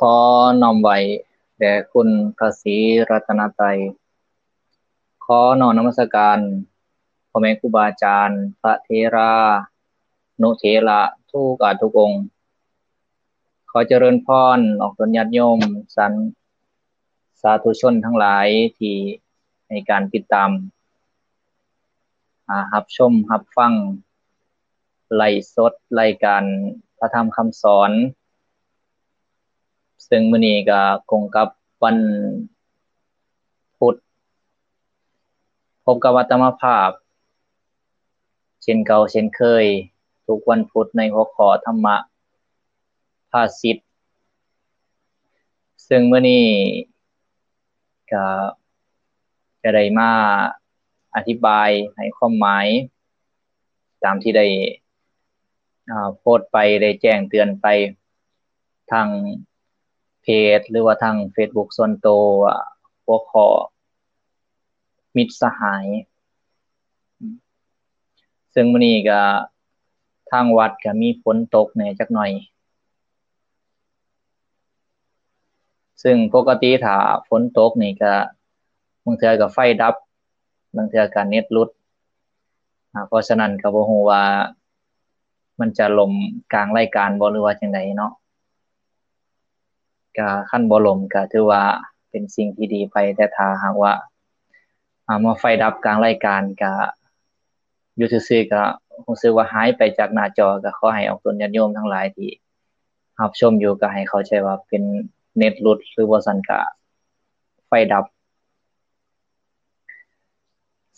ຂໍນ້ອມໄຫວ້ແດ່ຄຸນພະສີລັດຕະນະໄຕ, ຂໍນ້ອມນະມັດສະການພໍ່ແມ່ຄູບາອາຈານ, ພະເຖລານຸເຖລະທຸກອາດທຸກອົງ. ຂໍຈະເລີນພອນອອກຕົນຍາດໂຍມ, ສາທຸຊົນທັງຫຼາຍທີ່ໃຫ້ການຕິດຕາມ, ອາ, ຮັບຊົມຮັບຟັງ ໄລຟ໌ສົດລາຍການພະທຳຄຳສອນ, ເຊິ່ງມື້ນີ້ກໍກົງກັບວັນພຸດ, ພົບກັບອາດຕະມາພາບເຊັ່ນເກົ່າເຊັ່ນເຄີຍ, ທຸກວັນພຸດໃນຫົວຂໍ້ທຳມະພາສິດ, ເຊິ່ງມື້ນີ້ກໍຈະໄດ້ມາອະທິບາຍໃຫ້ຄວາມໝາຍ ຕາມທີ່ໄດ້ ອາ ໂພສໄປ, ໄດ້ແຈ້ງເຕືອນໄປທາງເພຈ ຫຼືວ່າທາງເຟສບຸກສ່ວນໂຕ ອາ ຫົວຂໍ້ມິດສະຫາຍ. ເຊິ່ງມື້ນີ້ກະທາງວັດກະມີຝົນຕົກແດ່ຈັກໜ້ອຍ, ເຊິ່ງປົກກະຕິຖ້າຝົນຕົກນີ້ກະ ບາງເທື່ອກະໄຟດັບ, ບາງເທື່ອກະເນັດຫຼຸດ, ອາ ເພາະສະນັ້ນກະບໍ່ຮູ້ວ່າມັນຈະລົ້ມກາງລາຍການບໍ່ ຫຼືວ່າຈັ່ງໃດເນາະ. ກະຄັນບໍ່ລົ້ມກະຖືວ່າເປັນສິ່ງທີ່ດີໄປ, ແຕ່ຖ້າຫາກວ່າ ອາ ມາໄຟດັບກາງລາຍການ ກະຢູ່ຊື່ໆ ກະຮູ້ສຶກວ່າຫາຍໄປຈາກໜ້າຈໍ, ກະຂໍໃຫ້ອອກຕົນຍາດໂຍມທັງຫຼາຍທີ່ຮັບຊົມຢູ່ ກະໃຫ້ເຂົ້າໃຈວ່າເປັນເນັດຫຼຸດ ຫຼືບໍ່ຊັ້ນກະໄຟດັບ.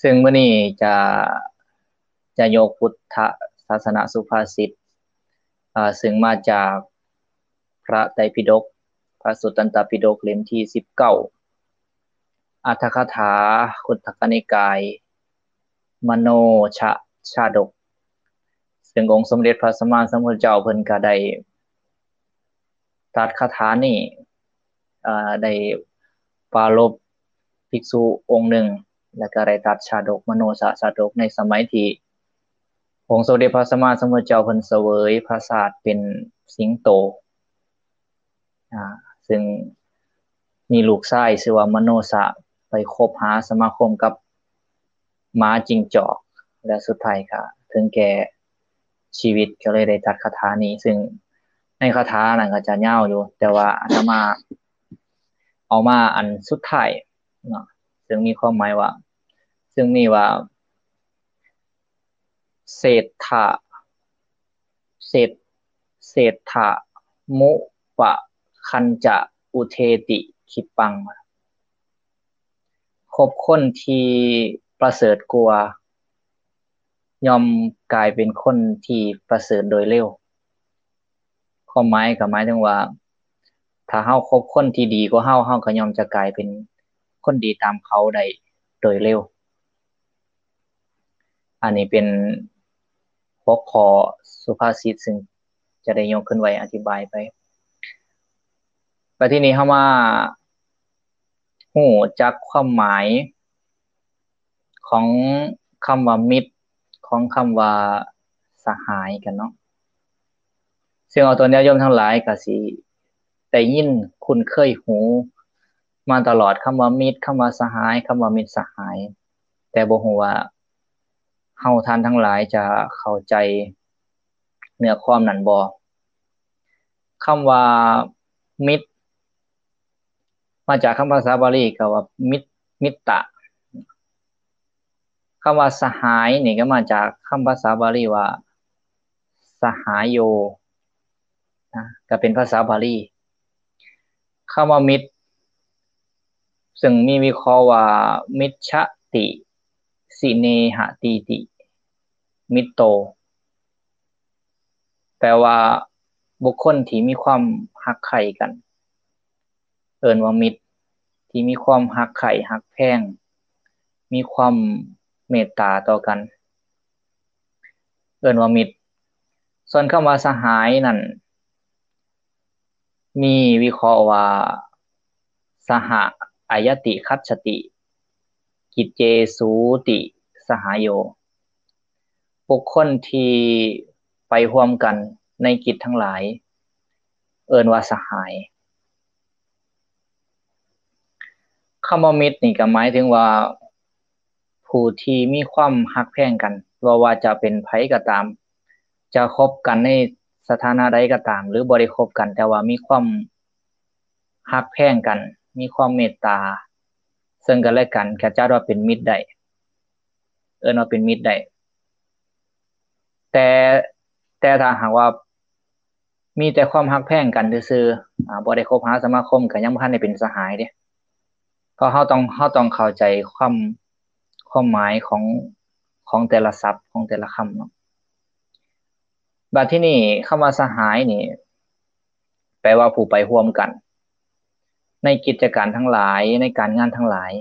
ເຊິ່ງມື້ນີ້ຈະ ຈະຍົກພຸດທະສາສະນະສຸພາສິດ ອາ ເຊິ່ງມາຈາກພະໄຕປິດົກ, ພະສຸດຕັນຕະປິດົກ ເຫຼັ້ມທີສິບເກົ້າ, ອັດຖະກະຖາ ຄຸດທະກະນິກາຍ ມະໂນຊະຊາດົກ, ເຊິ່ງອົງສົມເດັດພະສຳມາສຳພຸດທະເຈົ້າເພິ່ນກະໄດ້ຕັດຄາຖານີ້ ອາ ໄດ້ປາລົບພິກສຸອົງໜຶ່ງ ແລະກະໄດ້ຕັດຊາດົກ ມະໂນຊະຊາດົກ ໃນສະໄໝທີ່ອົງສົມເດັດພະສຳມາສຳພຸດທະເຈົ້າເພິ່ນສະເຫວີຍພະຊາດເປັນສິງໂຕ, ອາ ເຊິ່ງມີລູກຊາຍຊື່ວ່າມະໂນຊະ ໄປຄົບຫາສະມາຄົມກັບ ໝາຈິງຈອກ ແລະສຸດທ້າຍກະເຖິງແກ່ຊີວິດ, ກໍເລີຍໄດ້ຕັດຄາຖານີ້. ເຊິ່ງໃນຄາຖານັ້ນກໍຈະຍາວຢູ່, ແຕ່ວ່າອາດຕະມາເອົາມາອັນສຸດທ້າຍເນາະ, ເຊິ່ງມີຄວາມໝາຍວ່າ, ເຊິ່ງມີວ່າ ເສດຖະ ເສດ ເສດຖະມຸປະຄັນຈະອຸເທຕິຄີປັງ. ຄົບຄົນທີ່ປະເສີດກວ່າ ຍ່ອມກາຍເປັນຄົນທີ່ປະເສີດໂດຍເລັວ. ຄວາມໝາຍກໍໝາຍເຖິງວ່າ ຖ້າເຮົາຄົບຄົນທີ່ດີກວ່າເຮົາ, ເຮົາກໍຍ່ອມຈະກາຍເປັນຄົນດີຕາມເຂົາໄດ້ໂດຍເລັວ. ອັນນີ້ເປັນຫົວຂໍ້ສຸພາສິດ ເຊິ່ງຈະໄດ້ຍົກຂຶ້ນໄວ້ອະທິບາຍໄປ. ແລ້ວທີນີ້ເຮົາມາຮູ້ຈັກຄວາມໝາຍຂອງຄຳວ່າມິດ, ຂອງຄຳວ່າສະຫາຍກັນເນາະ. ເຊິ່ງເອົາຕົວຍາດໂຍມທັງຫຼາຍກໍຊິໄດ້ຍິນຄຸ້ນເຄີຍຫູມາຕະຫຼອດ, ຄຳວ່າມິດ, ຄຳວ່າສະຫາຍ, ຄຳວ່າມິດສະຫາຍ, ແຕ່ບໍ່ຮູ້ວ່າເຮົາທ່ານທັງຫຼາຍຈະເຂົ້າໃຈເນື້ອຄວາມນັ້ນບໍ່. ຄຳວ່າມິດ ມາຈາກຄຳພາສາບາລີກໍວ່າມິດ, ມິດຕະ. ຄຳວ່າສະຫາຍນີ້ກໍມາຈາກຄຳພາສາບາລີວ່າສະຫາໂຍ ນະ, ກໍເປັນພາສາບາລີ. ຄຳວ່າມິດ ເຊິ່ງມີວິເຄາະວ່າ ມິດຊະຕິ ສິເນຫະຕີຕິ ມິດໂຕ ແປວ່າບຸກຄົນທີ່ມີຄວາມຮັກໃຄ່ກັນ ເອີ້ນວ່າມິດ, ທີ່ມີຄວາມຮັກໃຄ່ຮັກແພງ, ມີຄວາມເມດຕາຕໍ່ກັນ ເອີ້ນວ່າມິດ. ສ່ວນຄຳວ່າສະຫາຍນັ້ນ ມີວິເຄາະວ່າ ສະຫະອາຍະຕິຄັດສະຕິ ກິດເຈສູຕິສະຫາໂຍ. ບຸກຄົນທີ່ໄປຮ່ວມກັນໃນກິດທັງຫຼາຍ ເອີ້ນວ່າສະຫາຍ. ຄຳວ່າມິດນີ້ກໍໝາຍເຖິງວ່າ ຜູ້ທີ່ມີຄວາມຮັກແພງກັນ ບໍ່ວ່າຈະເປັນໃຜກໍຕາມ ຈະຄົບກັນໃນສະຖານະໃດກໍຕາມ ຫຼືບໍ່ໄດ້ຄົບກັນ ແຕ່ວ່າມີຄວາມຮັກແພງກັນ ມີຄວາມເມດຕາເຊິ່ງກັນແລະກັນ ກໍຈັດວ່າເປັນມິດໄດ້ ເອີ້ນວ່າເປັນມິດໄດ້ ແຕ່ ແຕ່ຖ້າຫາກວ່າ ມີແຕ່ຄວາມຮັກແພງກັນຊື່ໆ ອາ ບໍ່ໄດ້ຄົບຫາສະມາຄົມ ກໍຍັງບໍ່ທັນໄດ້ເປັນສະຫາຍເດ້ ເພາະເຮົາຕ້ອງ ເຮົາຕ້ອງເຂົ້າໃຈຄວາມ ຄວາມໝາຍຂອງ ຂອງແຕ່ລະສັບ ຂອງແຕ່ລະຄຳເນາະ. ບັດທີນີ້ ຄຳວ່າສະຫາຍນີ້ ແປວ່າຜູ້ໄປຮ່ວມກັນ ໃນກິດຈະການທັງຫຼາຍ ໃນການງານທັງຫຼາຍ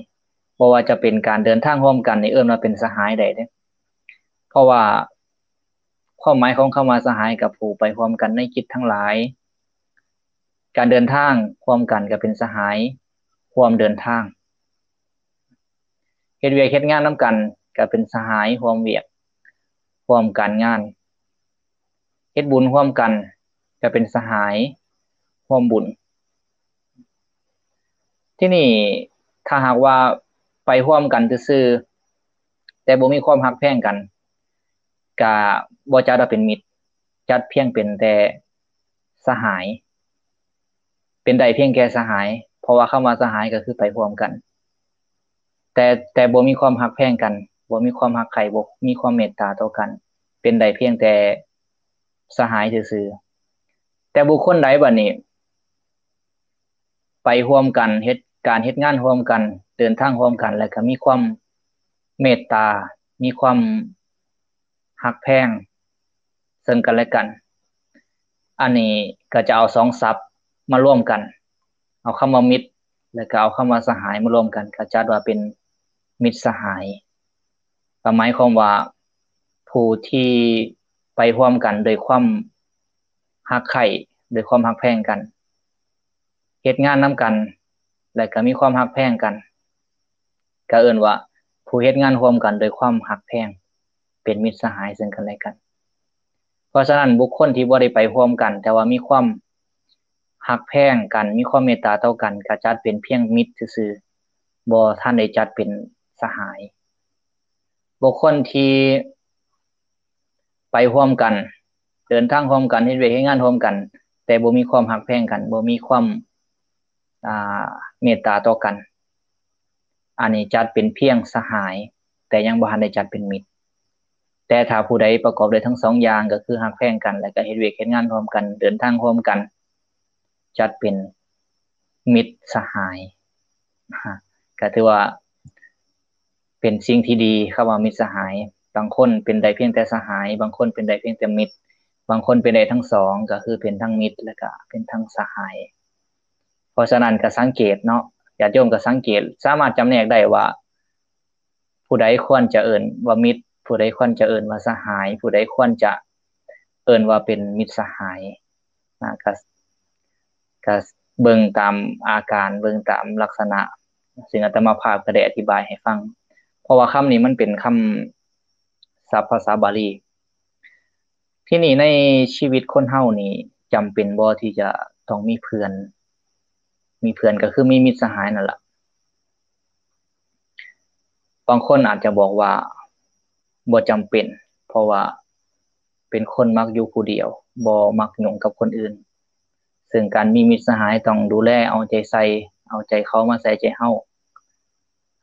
ບໍ່ວ່າຈະເປັນການເດີນທາງຮ່ວມກັນນີ້ ເອີ້ນວ່າເປັນສະຫາຍໄດ້ເດ້ ເພາະວ່າ ຄວາມໝາຍຂອງຄຳວ່າສະຫາຍ ກໍຜູ້ໄປຮ່ວມກັນໃນກິດທັງຫຼາຍ ການເດີນທາງຮ່ວມກັນກໍເປັນສະຫາຍຮ່ວມເດີນທາງ ເຮັດວຽກເຮັດງານນຳກັນກໍເປັນສະຫາຍຮ່ວມວຽກຮ່ວມການງານ ເຮັດບຸນຮ່ວມກັນກໍເປັນສະຫາຍຮ່ວມບຸນ. ທີນີ້ ຖ້າຫາກວ່າໄປຮ່ວມກັນຊື່ໆ ແຕ່ບໍ່ມີຄວາມຮັກແພງກັນ ກະບໍ່ຈັດວ່າເປັນມິດ ຈັດພຽງເປັນແຕ່ສະຫາຍ ເປັນໄດ້ພຽງແຕ່ສະຫາຍ ເພາະວ່າຄຳວ່າສະຫາຍກໍຄືໄປຮ່ວມກັນ ແຕ່ ແຕ່ບໍ່ມີຄວາມຮັກແພງກັນ ບໍ່ມີຄວາມຮັກໃຄ່ ບໍ່ມີຄວາມເມດຕາຕໍ່ກັນ ເປັນໄດ້ພຽງແຕ່ສະຫາຍຊື່ໆ. ແຕ່ບຸກຄົນໃດບັດນີ້ ໄປຮ່ວມກັນ ເຮັດການເຮັດງານຮ່ວມກັນ ເດີນທາງຮ່ວມກັນ ແລ້ວກໍມີຄວາມເມດຕາ ມີຄວາມຮັກແພງເຊິ່ງກັນແລະກັນ ອັນນີ້ກໍຈະເອົາສອງສັບມາລວມກັນ ເອົາຄຳວ່າມິດ ແລ້ວກໍເອົາຄຳວ່າສະຫາຍມາລວມກັນ ກໍຈັດວ່າເປັນມິດສະຫາຍ ກໍໝາຍຄວາມວ່າ ຜູ້ທີ່ໄປຮ່ວມກັນໂດຍຄວາມຮັກໃຄ່ ໂດຍຄວາມຮັກແພງກັນ ເຮັດງານນຳກັນ ແລະກໍມີຄວາມຮັກແພງກັນ ກໍເອີ້ນວ່າຜູ້ເຮັດງານຮ່ວມກັນໂດຍຄວາມຮັກແພງ ເປັນມິດສະຫາຍເຊິ່ງກັນແລະກັນ. ເພາະສະນັ້ນ ບຸກຄົນທີ່ບໍ່ໄດ້ໄປຮ່ວມກັນ ແຕ່ວ່າມີຄວາມຮັກແພງກັນ ມີຄວາມເມດຕາຕໍ່ກັນ ກໍຈັດເປັນພຽງມິດຊື່ໆ ບໍ່ທັນໄດ້ຈັດເປັນສະຫາຍ. ບຸກຄົນທີ່ໄປຮ່ວມກັນ ເດີນທາງຮ່ວມກັນ ເຮັດວຽກເຮັດງານຮ່ວມກັນ ແຕ່ບໍ່ມີຄວາມຮັກແພງກັນ ບໍ່ມີຄວາມ ອ່າ ເມດຕາຕໍ່ກັນ ອັນນີ້ຈັດເປັນພຽງສະຫາຍ ແຕ່ຍັງບໍ່ທັນໄດ້ຈັດເປັນມິດ. ແຕ່ຖ້າຜູ້ໃດປະກອບດ້ວຍທັງສອງຢ່າງ ກໍຄືຮັກແພງກັນ ແລະກໍເຮັດວຽກເຮັດງານຮ່ວມກັນ ເດີນທາງຮ່ວມກັນ ຈັດເປັນມິດສະຫາຍ ກໍຖືວ່າເປັນສິ່ງທີ່ດີ. ຄຳວ່າມິດສະຫາຍ ບາງຄົນເປັນໄດ້ພຽງແຕ່ສະຫາຍ ບາງຄົນເປັນໄດ້ພຽງແຕ່ມິດ ບາງຄົນເປັນໄດ້ທັງສອງ ກໍຄືເປັນທັງມິດ ແລະກະເປັນທັງສະຫາຍ. ເພາະສະນັ້ນກໍສັງເກດເນາະ ຍາດໂຍມກໍສັງເກດ ສາມາດຈຳແນກໄດ້ວ່າ ຜູ້ໃດຄວນຈະເອີ້ນວ່າມິດ ຜູ້ໃດຄວນຈະເອີ້ນວ່າສະຫາຍ ຜູ້ໃດຄວນຈະເອີ້ນວ່າເປັນມິດສະຫາຍນະ ກະ ກະເບິ່ງຕາມອາການ ເບິ່ງຕາມລັກສະນະ ຊຶ່ງອາດຕະມາພາບກໍໄດ້ອະທິບາຍໃຫ້ຟັງ ເພາະວ່າຄຳນີ້ມັນເປັນຄຳສັບພາສາບາລີ. ທີນີ້ໃນຊີວິດຄົນເຮົານີ້ ຈຳເປັນບໍ່ທີ່ຈະຕ້ອງມີເພື່ອນ? ມີເພື່ອນກໍຄືມີມິດສະຫາຍນັ້ນລະ. ບາງຄົນອາດຈະບອກວ່າບໍ່ຈຳເປັນ ເພາະວ່າເປັນຄົນມັກຢູ່ຜູ້ດຽວ ບໍ່ມັກຫຍຸ້ງກັບຄົນອື່ນ ເຊິ່ງການມີມິດສະຫາຍຕ້ອງດູແລເອົາໃຈໃສ່ ເອົາໃຈເຂົາມາໃສ່ໃຈເຮົາ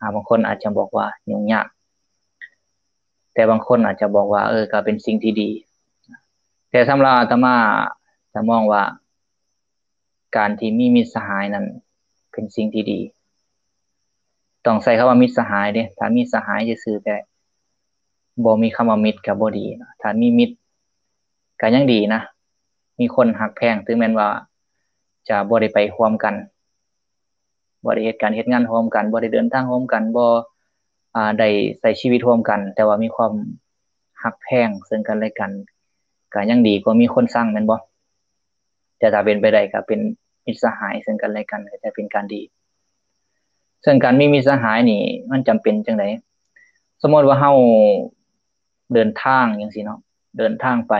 ອາ ບາງຄົນອາດຈະບອກວ່າຫຍຸ້ງຍາກ ແຕ່ບາງຄົນອາດຈະບອກວ່າ ເອີ ກໍເປັນສິ່ງທີ່ດີ. ແຕ່ສຳລັບອາດຕະມາຈະມອງວ່າ ການທີ່ມີມິດສະຫາຍນັ້ນເປັນສິ່ງທີ່ດີ. ຕ້ອງໃຊ້ຄຳວ່າມິດສະຫາຍເດ້ ຖ້າມີສະຫາຍຊື່ໆ ແຕ່ບໍ່ມີຄຳວ່າມິດກໍບໍ່ດີ. ຖ້າມີມິດກໍຍັງດີນະ ມີຄົນຮັກແພງ ເຖິງແມ່ນວ່າຈະບໍ່ໄດ້ໄປຮ່ວມກັນ ບໍ່ໄດ້ເຮັດການເຮັດງານຮ່ວມກັນ ບໍ່ໄດ້ເດີນທາງຮ່ວມກັນ ບໍ່ ອາ ໄດ້ໃຊ້ຊີວິດຮ່ວມກັນ ແຕ່ວ່າມີຄວາມຮັກແພງເຊິ່ງກັນແລະກັນ ກໍຍັງດີກວ່າມີຄົນຊັງ ແມ່ນບໍ່? ແຕ່ຖ້າເປັນໄປໄດ້ກໍເປັນມິດສະຫາຍເຊິ່ງກັນແລະກັນ ກໍຈະເປັນການດີ. ເຊິ່ງການມີມິດສະຫາຍນີ້ມັນຈຳເປັນຈັ່ງໃດ? ສົມມຸດວ່າເຮົາເດີນທາງຈັ່ງຊີ້ເນາະ ເດີນທາງໄປ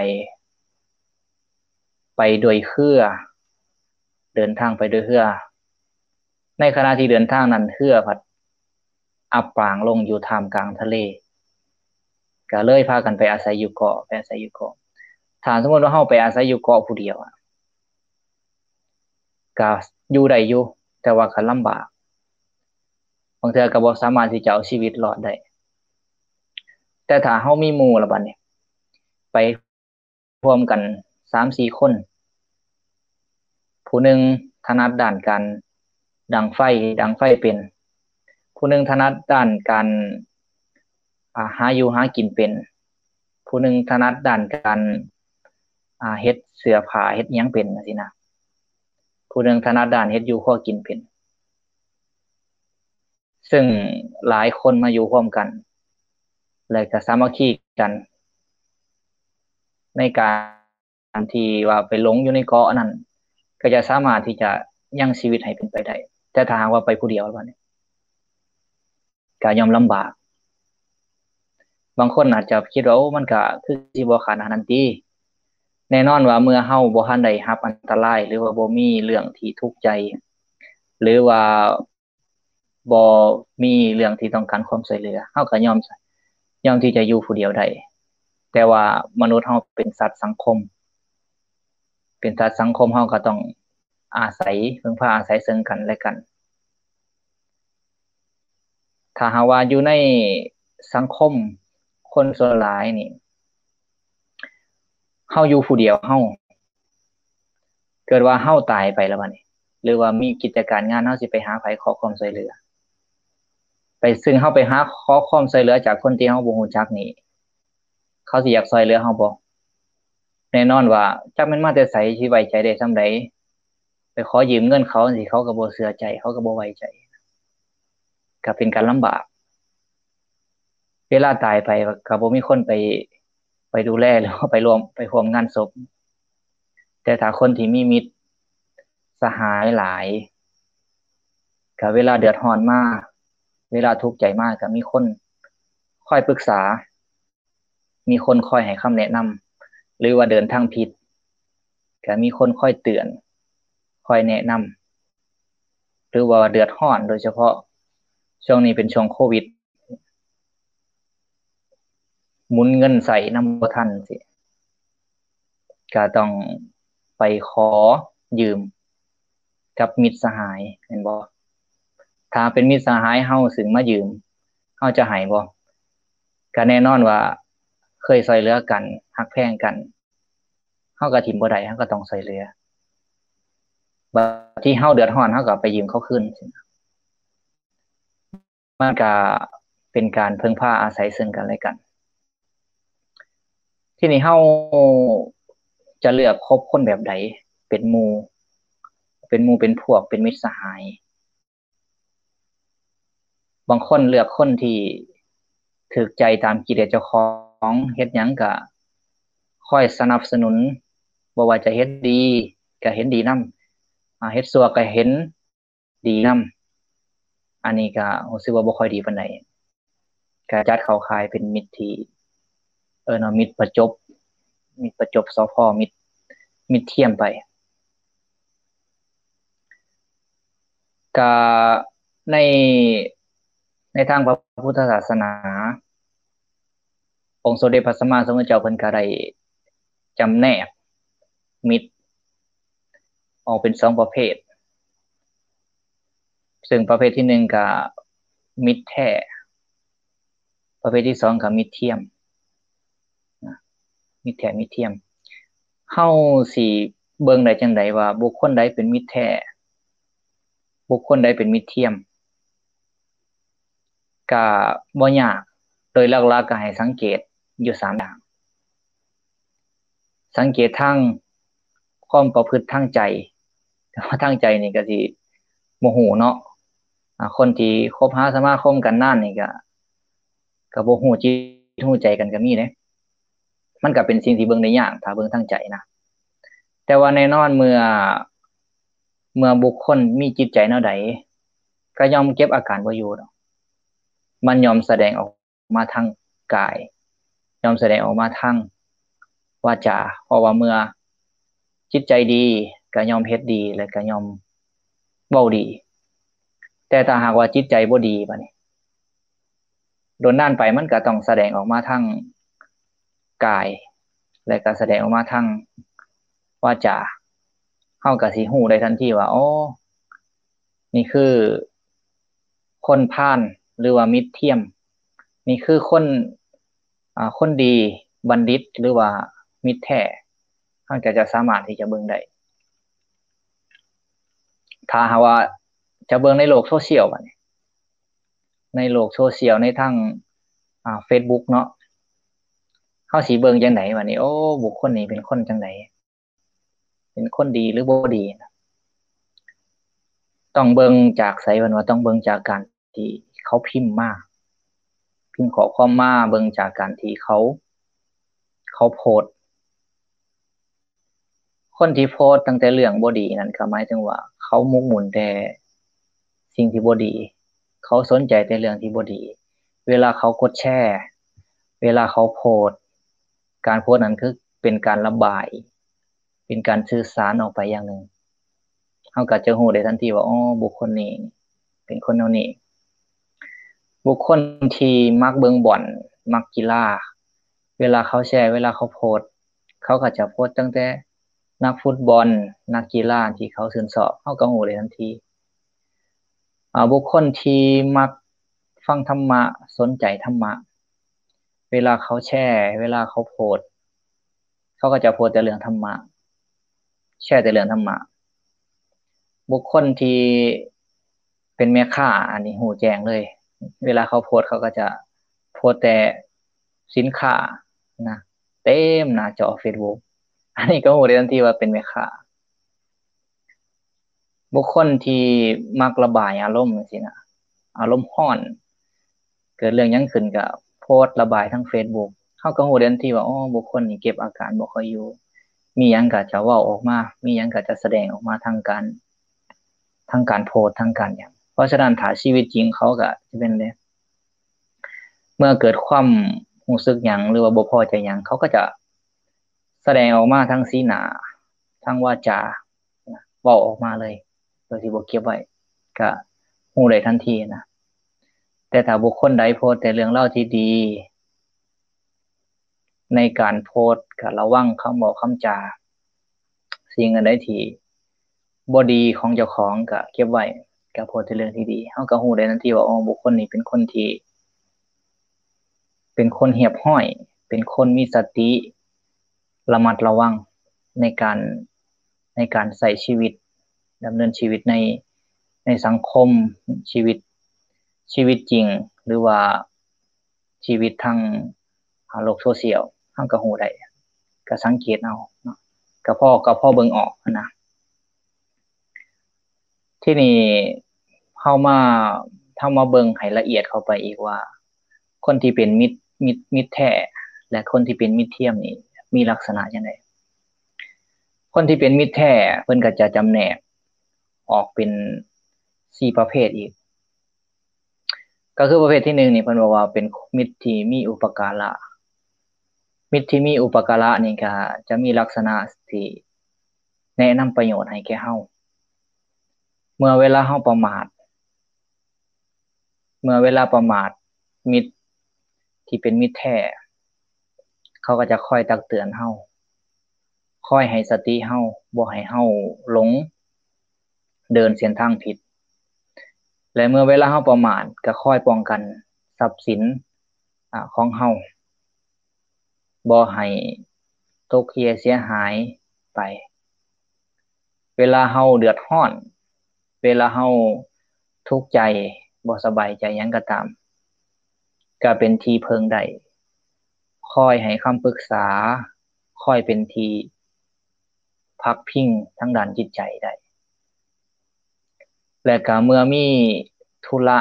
ໄປດ້ວຍເຮືອ ເດີນທາງໄປດ້ວຍເຮືອ ໃນຂະນະທີ່ເດີນທາງນັ້ນ ເຮືອພັດອັບປາງລົງຢູ່ທ່າມກາງທະເລ ກໍເລີຍພາກັນໄປອາໄສຢູ່ເກາະ ໄປອາໄສຢູ່ເກາະ. ຖ້າສົມມຸດວ່າເຮົາໄປອາໄສຢູ່ເກາະຜູ້ດຽວ ກໍຢູ່ໄດ້ຢູ່ ແຕ່ວ່າກໍລຳບາກ ບາງເທື່ອກໍບໍ່ສາມາດທີ່ຈະເອົາຊີວິດລອດໄດ້. ແຕ່ຖ້າເຮົາມີໝູ່ລະບັດນີ້ ໄປ ຮ່ວມກັນສາມສີ່ຄົນ ຜູ້ໜຶ່ງຖະໜັດດ້ານການດັງໄຟ ດັງໄຟເປັນ, ຜູ້ໜຶ່ງຖະໜັດດ້ານການ ອາ ຫາຢູ່ຫາກິນເປັນ, ຜູ້ໜຶ່ງຖະໜັດດ້ານການ ອາ ເຮັດເສື້ອຜ້າເຮັດຫຍັງເປັນ ຈັ່ງຊີ້ນະ, ຜູ້ໜຶ່ງຖະໜັດດ້ານເຮັດຢູ່ຄົວກິນເປັນ. ເຊິ່ງຫຼາຍຄົນມາຢູ່ຮ່ວມກັນ ແລະ ກໍສາມັກຄີກັນ ໃນການທີ່ວ່າໄປຫຼົງຢູ່ໃນເກາະນັ້ນ ກໍຈະສາມາດທີ່ຈະຍັງຊີວິດໃຫ້ເປັນໄປໄດ້. ແຕ່ຖ້າຫາກວ່າໄປຜູ້ດຽວ ບາດນີ້ ກໍຍ່ອມລຳບາກ. ບາງຄົນອາດຈະຄິດວ່າ ໂອ້ ມັນກໍຄືຊິບໍ່ຂະໜາດນັ້ນຕິ. ແນ່ນອນວ່າເມື່ອເຮົາບໍ່ທັນໄດ້ຮັບອັນຕະລາຍ ຫຼືວ່າບໍ່ມີເລື່ອງທີ່ທຸກໃຈ ຫຼືວ່າ ບໍ່ມີເລື່ອງທີ່ຕ້ອງການຄວາມຊ່ວຍເຫຼືອ ເຮົາກໍຍອມ ຍອມທີ່ຈະຢູ່ຜູ້ດຽວໄດ້. ແຕ່ວ່າມະນຸດເຮົາເປັນສັດສັງຄົມ ເປັນສັດສັງຄົມ ເຮົາກໍຕ້ອງອາໄສ ເພິ່ງພາອາໄສເຊິ່ງກັນແລະກັນ. ຖ້າຫາກວ່າຢູ່ໃນສັງຄົມຄົນສ່ວນຫຼາຍນີ້ ເຮົາຢູ່ຜູ້ດຽວ ເຮົາ ເກີດວ່າເຮົາຕາຍໄປແລ້ວບາດນີ້ ຫຼືວ່າມີກິດຈະການງານ ເຮົາຊິໄປຫາໃຜຂໍຄວາມຊ່ວຍເຫຼືອ? ໄປ ຊຶ່ງເຮົາໄປຫາຂໍຄວາມຊ່ວຍເຫຼືອຈາກຄົນທີ່ເຮົາບໍ່ຮູ້ຈັກນີ້ ເຂົາຊິຢາກຊ່ວຍເຫຼືອເຮົາບໍ່? ແນ່ນອນວ່າ ຈັກແມ່ນມາແຕ່ໃສ ຊິໄວ້ໃຈໄດ້ສ່ຳໃດ? ໄປຂໍຢືມເງິນເຂົາຈັ່ງຊີ້ ເຂົາກໍບໍ່ເຊື່ອໃຈ ເຂົາກໍບໍ່ໄວ້ໃຈ ກໍເປັນການລຳບາກ. ເວລາຕາຍໄປກໍບໍ່ມີຄົນໄປ ໄປດູແລ ຫຼືວ່າໄປຮ່ວມ ໄປຮ່ວມງານສົບ. ແຕ່ຖ້າຄົນທີ່ມີມິດສະຫາຍຫຼາຍ ກໍເວລາເດືອດຮ້ອນມາ ເວລາທຸກໃຈມາ ກໍມີຄົນຄອຍປຶກສາ ມີຄົນຄອຍໃຫ້ຄຳແນະນຳ ຫຼືວ່າເດີນທາງຜິດ ກໍມີຄົນຄອຍເຕືອນ ຄອຍແນະນຳ. ຫຼືວ່າເດືອດຮ້ອນ ໂດຍສະເພາະຊ່ວງນີ້ເປັນຊ່ວງໂຄວິດ ໝູນເງິນໃຊ້ນຳບໍ່ທັນຊີ້ ກະຕ້ອງໄປຂໍຢືມກັບມິດສະຫາຍ ແມ່ນບໍ່? ຖ້າເປັນມິດສະຫາຍເຮົາ ຊຶ່ງມາຢືມ ເຮົາຈະໃຫ້ບໍ່? ກະແນ່ນອນວ່າເຄີຍຊ່ວຍເຫຼືອກັນ ຮັກແພງກັນ ເຮົາກໍຖິ້ມບໍ່ໄດ້ ເຮົາກໍຕ້ອງຊ່ວຍເຫຼືອ. ບາດທີ່ເຮົາເດືອດຮ້ອນ ເຮົາກໍໄປຢືມເຂົາຄືນ. ມັນກະເປັນການເພິ່ງພາອາໄສເຊິ່ງກັນແລະກັນ. ທີນີ້ເຮົາຈະເລືອກຄົບຄົນແບບໃດເປັນໝູ່ ເປັນໝູ່ເປັນພວກ ເປັນມິດສະຫາຍ? ບາງຄົນເລືອກຄົນທີ່ຖືກໃຈຕາມກິເລດເຈົ້າຂອງ ເຮັດຫຍັງກະຄອຍສະໜັບສະໜູນ ບໍ່ວ່າຈະເຮັດດີກະເຫັນດີນຳ ອາ ເຮັດຊົ່ວກະເຫັນ ດີນຳ. ອັນນີ້ກະຮູ້ສຶກວ່າບໍ່ຄ່ອຍດີປານໃດ ກະຈັດເຂົ້າຂ່າຍເປັນມິດທີ່ ເອີ້ນວ່າມິດປະຈົບ ມິດປະຈົບ ສພ ມິດ ມິດທຽມໄປ. ກະໃນ ໃນທາງພະພຸດທະສາສະໜາ ອົງສົມເດັດພະສຳມາສຳພຸດທະເຈົ້າເພິ່ນກໍໄດ້ຈຳແນກມິດອອກເປັນສອງປະເພດ ເຊິ່ງປະເພດທີໜຶ່ງກໍມິດແທ້ ປະເພດທີສອງກໍມິດທຽມ ນະ ມິດແທ້ມິດທຽມ. ເຮົາຊິເບິ່ງໄດ້ຈັ່ງໃດວ່າບຸກຄົນໃດເປັນມິດແທ້ ບຸກຄົນໃດເປັນມິດທຽມ? ກະບໍ່ຍາກ ໂດຍຫຼັກໆກະໃຫ້ສັງເກດຢູ່ສາມຢ່າງ. ສັງເກດທາງຄວາມປະພຶດທາງໃຈ ແຕ່ວ່າທາງໃຈນີ້ກະຊິບໍ່ຮູ້ເນາະ ອາ ຄົນທີ່ຄົບຫາສະມາຄົມກັນນານນີ້ກະ ກະບໍ່ຮູ້ຈິດຮູ້ໃຈກັນກະມີເດ້. ມັນກະເປັນສິ່ງທີ່ເບິ່ງໄດ້ຍາກ ຖ້າເບິ່ງທາງໃຈນະ. ແຕ່ວ່າແນ່ນອນເມື່ອ ເມື່ອບຸກຄົນມີຈິດໃຈແນວໃດ ກະຍ່ອມເກັບອາການບໍ່ຢູ່ດອກ ມັນຍ່ອມສະແດງອອກມາທາງກາຍ ຍ່ອມສະແດງອອກມາທາງວາຈາ ເພາະວ່າເມື່ອຈິດໃຈດີກະຍ່ອມເຮັດດີ ແລະກະຍ່ອມເວົ້າດີ. ແຕ່ຖ້າຫາກວ່າຈິດໃຈບໍ່ດີບາດນີ້ ດົນນານໄປມັນກໍຕ້ອງສະແດງອອກມາທາງກາຍ ແລະກໍສະແດງອອກມາທາງວາຈາ. ເຮົາກໍຊິຮູ້ໄດ້ທັນທີວ່າ ອໍ ນີ້ຄືຄົນພານ ຫຼືວ່າມິດທຽມ, ນີ້ຄືຄົນ ອາ ຄົນດີ ບັນດິດ ຫຼືວ່າມິດແທ້. ເຮົາກໍຈະສາມາດທີ່ຈະເບິ່ງໄດ້ ຖ້າຫາກວ່າຈະເບິ່ງໃນໂລກໂຊຊຽວບາດນີ້ ໃນໂລກໂຊຊຽວ ໃນທາງ ອາ ເຟສບຸກເນາະ ເຮົາຊິເບິ່ງຈັ່ງໃດບາດນີ້? ໂອ້ ບຸກຄົນນີ້ເປັນຄົນຈັ່ງໃດ? ເປັນຄົນດີ ຫຼື ບໍ່ດີ? ຕ້ອງເບິ່ງຈາກໃສ? ເພິ່ນວ່າຕ້ອງເບິ່ງຈາກການທີ່ເຂົາພິມມາ ພິມຂໍ້ຄວາມມາ, ເບິ່ງຈາກການທີ່ເຂົາ ເຂົາໂພສ. ຄົນທີ່ໂພສຕັ້ງແຕ່ເລື່ອງບໍ່ດີນັ້ນ ກໍໝາຍເຖິງວ່າເຂົາໝົກໝຸ່ນແຕ່ສິ່ງທີ່ບໍ່ດີ, ເຂົາສົນໃຈແຕ່ເລື່ອງທີ່ບໍ່ດີ. ເວລາເຂົາກົດແຊ, ເວລາເຂົາໂພສ, ການໂພສນັ້ນຄືເປັນການລະບາຍ, ເປັນການສື່ສານອອກໄປຢ່າງໜຶ່ງ. ເຮົາກໍຈະຮູ້ໄດ້ທັນທີວ່າ ອໍ ບຸກຄົນນີ້ເປັນຄົນແນວນີ້. ບຸກຄົນທີ່ມັກເບິ່ງບອນ, ມັກກິລາ, ເວລາເຂົາແຊ, ເວລາເຂົາໂພສ, ເຂົາກໍຈະໂພສຕັ້ງແຕ່ນັກຟຸດບອນ, ນັກກິລາທີ່ເຂົາຊື່ນຊອບ, ເຮົາກໍຮູ້ໄດ້ທັນທີ. ອາ ບຸກຄົນທີ່ມັກຟັງທຳມະ, ສົນໃຈທຳມະ, ເວລາເຂົາແຊ, ເວລາເຂົາໂພສ, ເຂົາກໍຈະໂພສແຕ່ເລື່ອງທຳມະ, ແຊແຕ່ເລື່ອງທຳມະ. ບຸກຄົນທີ່ເປັນແມ່ຄ້າ, ອັນນີ້ຮູ້ແຈ້ງເລີຍ, ເວລາເຂົາໂພສ, ເຂົາກໍຈະໂພສແຕ່ສິນຄ້ານະ ເຕັມໜ້າຈໍເຟສບຸກ, ອັນນີ້ກໍຮູ້ໄດ້ທັນທີວ່າເປັນແມ່ຄ້າ. ບຸກຄົນທີ່ມັກລະບາຍອາລົມຈັ່ງຊີ້ນະ, ອາລົມຮ້ອນ, ເກີດເລື່ອງຫຍັງຂຶ້ນກໍໂພສລະບາຍທາງເຟສບຸກ, ເຮົາກໍຮູ້ໄດ້ທັນທີວ່າ ອໍ ບຸກຄົນນີ້ເກັບອາການບໍ່ຄ່ອຍຢູ່, ມີຫຍັງກໍຈະເວົ້າອອກມາ, ມີຫຍັງກໍຈະສະແດງອອກມາທາງການ, ທາງການໂພສ, ທາງການຫຍັງ. ເພາະສະນັ້ນ ຖ້າຊີວິດຈິງເຂົາກໍຈະເປັນແບບ ເມື່ອເກີດຄວາມຮູ້ສຶກຫຍັງ ຫຼືວ່າບໍ່ພໍໃຈຫຍັງ ເຂົາກໍຈະສະແດງອອກມາທາງສີໜ້າ, ທາງວາຈາ, ເວົ້າອອກມາເລີຍ ໂດຍທີ່ບໍ່ເກັບໄວ້, ກະຮູ້ໄດ້ທັນທີນະ. ແຕ່ຖ້າບຸກຄົນໃດໂພສແຕ່ເລື່ອງລາວທີ່ດີ ໃນການໂພສກະລະວັງຄຳເວົ້າຄຳຈາ, ສິ່ງອັນໃດທີ່ບໍ່ດີຂອງເຈົ້າຂອງກະເກັບໄວ້, ກະໂພສແຕ່ເລື່ອງທີ່ດີ, ເຮົາກະຮູ້ໄດ້ທັນທີວ່າ ອໍ ບຸກຄົນນີ້ເປັນຄົນທີ່ ເປັນຄົນຮຽບຮ້ອຍ, ເປັນຄົນມີສະຕິ ລະມັດລະວັງໃນການ, ໃນການໃຊ້ຊີວິດ, ດຳເນີນຊີວິດໃນ, ໃນສັງຄົມ, ຊີວິດ, ຊີວິດຈິງ ຫຼືວ່າຊີວິດທາງ ອາ ໂລກໂຊຊຽວ, ເຮົາກໍຮູ້ໄດ້, ກໍສັງເກດເອົາເນາະ, ກໍພໍ, ກໍພໍເບິ່ງອອກຫັ້ນນະ. ທີນີ້ເຮົາມາ, ເຮົາມາເບິ່ງໃຫ້ລະອຽດເຂົ້າໄປອີກວ່າ ຄົນທີ່ເປັນມິດ, ມິດ, ມິດແທ້ ແລະ ຄົນທີ່ເປັນມິດທຽມນີ້ມີລັກສະນະຈັ່ງໃດ? ຄົນທີ່ເປັນມິດແທ້ ເພິ່ນກໍຈະຈຳແນກອອກເປັນສີ່ປະເພດອີກ. ກໍຄືປະເພດທີໜຶ່ງນີ້ ເພິ່ນບອກວ່າເປັນມິດທີ່ມີອຸປະກາລະ. ມິດທີ່ມີອຸປະກາລະນີ້ກໍຈະມີລັກສະນະທີ່ແນະນຳປະໂຫຍດໃຫ້ແກ່ເຮົາ. ເມື່ອເວລາເຮົາປະໝາດ, ເມື່ອເວລາປະໝາດ, ມິດທີ່ເປັນມິດແທ້ ເຂົາກໍຈະຄອຍຕັກເຕືອນເຮົາ, ຄອຍໃຫ້ສະຕິເຮົາ, ບໍ່ໃຫ້ເຮົາຫຼົງເດີນເສັ້ນທາງຜິດ. ແລະ ເມື່ອເວລາເຮົາປະໝາດ ກໍຄອຍປ້ອງກັນຊັບສິນ, ອາ, ຂອງເຮົາ ບໍ່ໃຫ້ຕົກເຮ່ຍເສຍຫາຍໄປ. ເວລາເຮົາເດືອດຮ້ອນ, ເວລາເຮົາທຸກໃຈ, ບໍ່ສະບາຍໃຈຫຍັງກໍຕາມ, ກໍເປັນທີ່ເພິ່ງໄດ້, ຄອຍໃຫ້ຄຳປຶກສາ, ຄອຍເປັນທີ່ພັກພິງທາງດ້ານຈິດໃຈໄດ້. ແລະ ກໍເມື່ອມີທຸລະ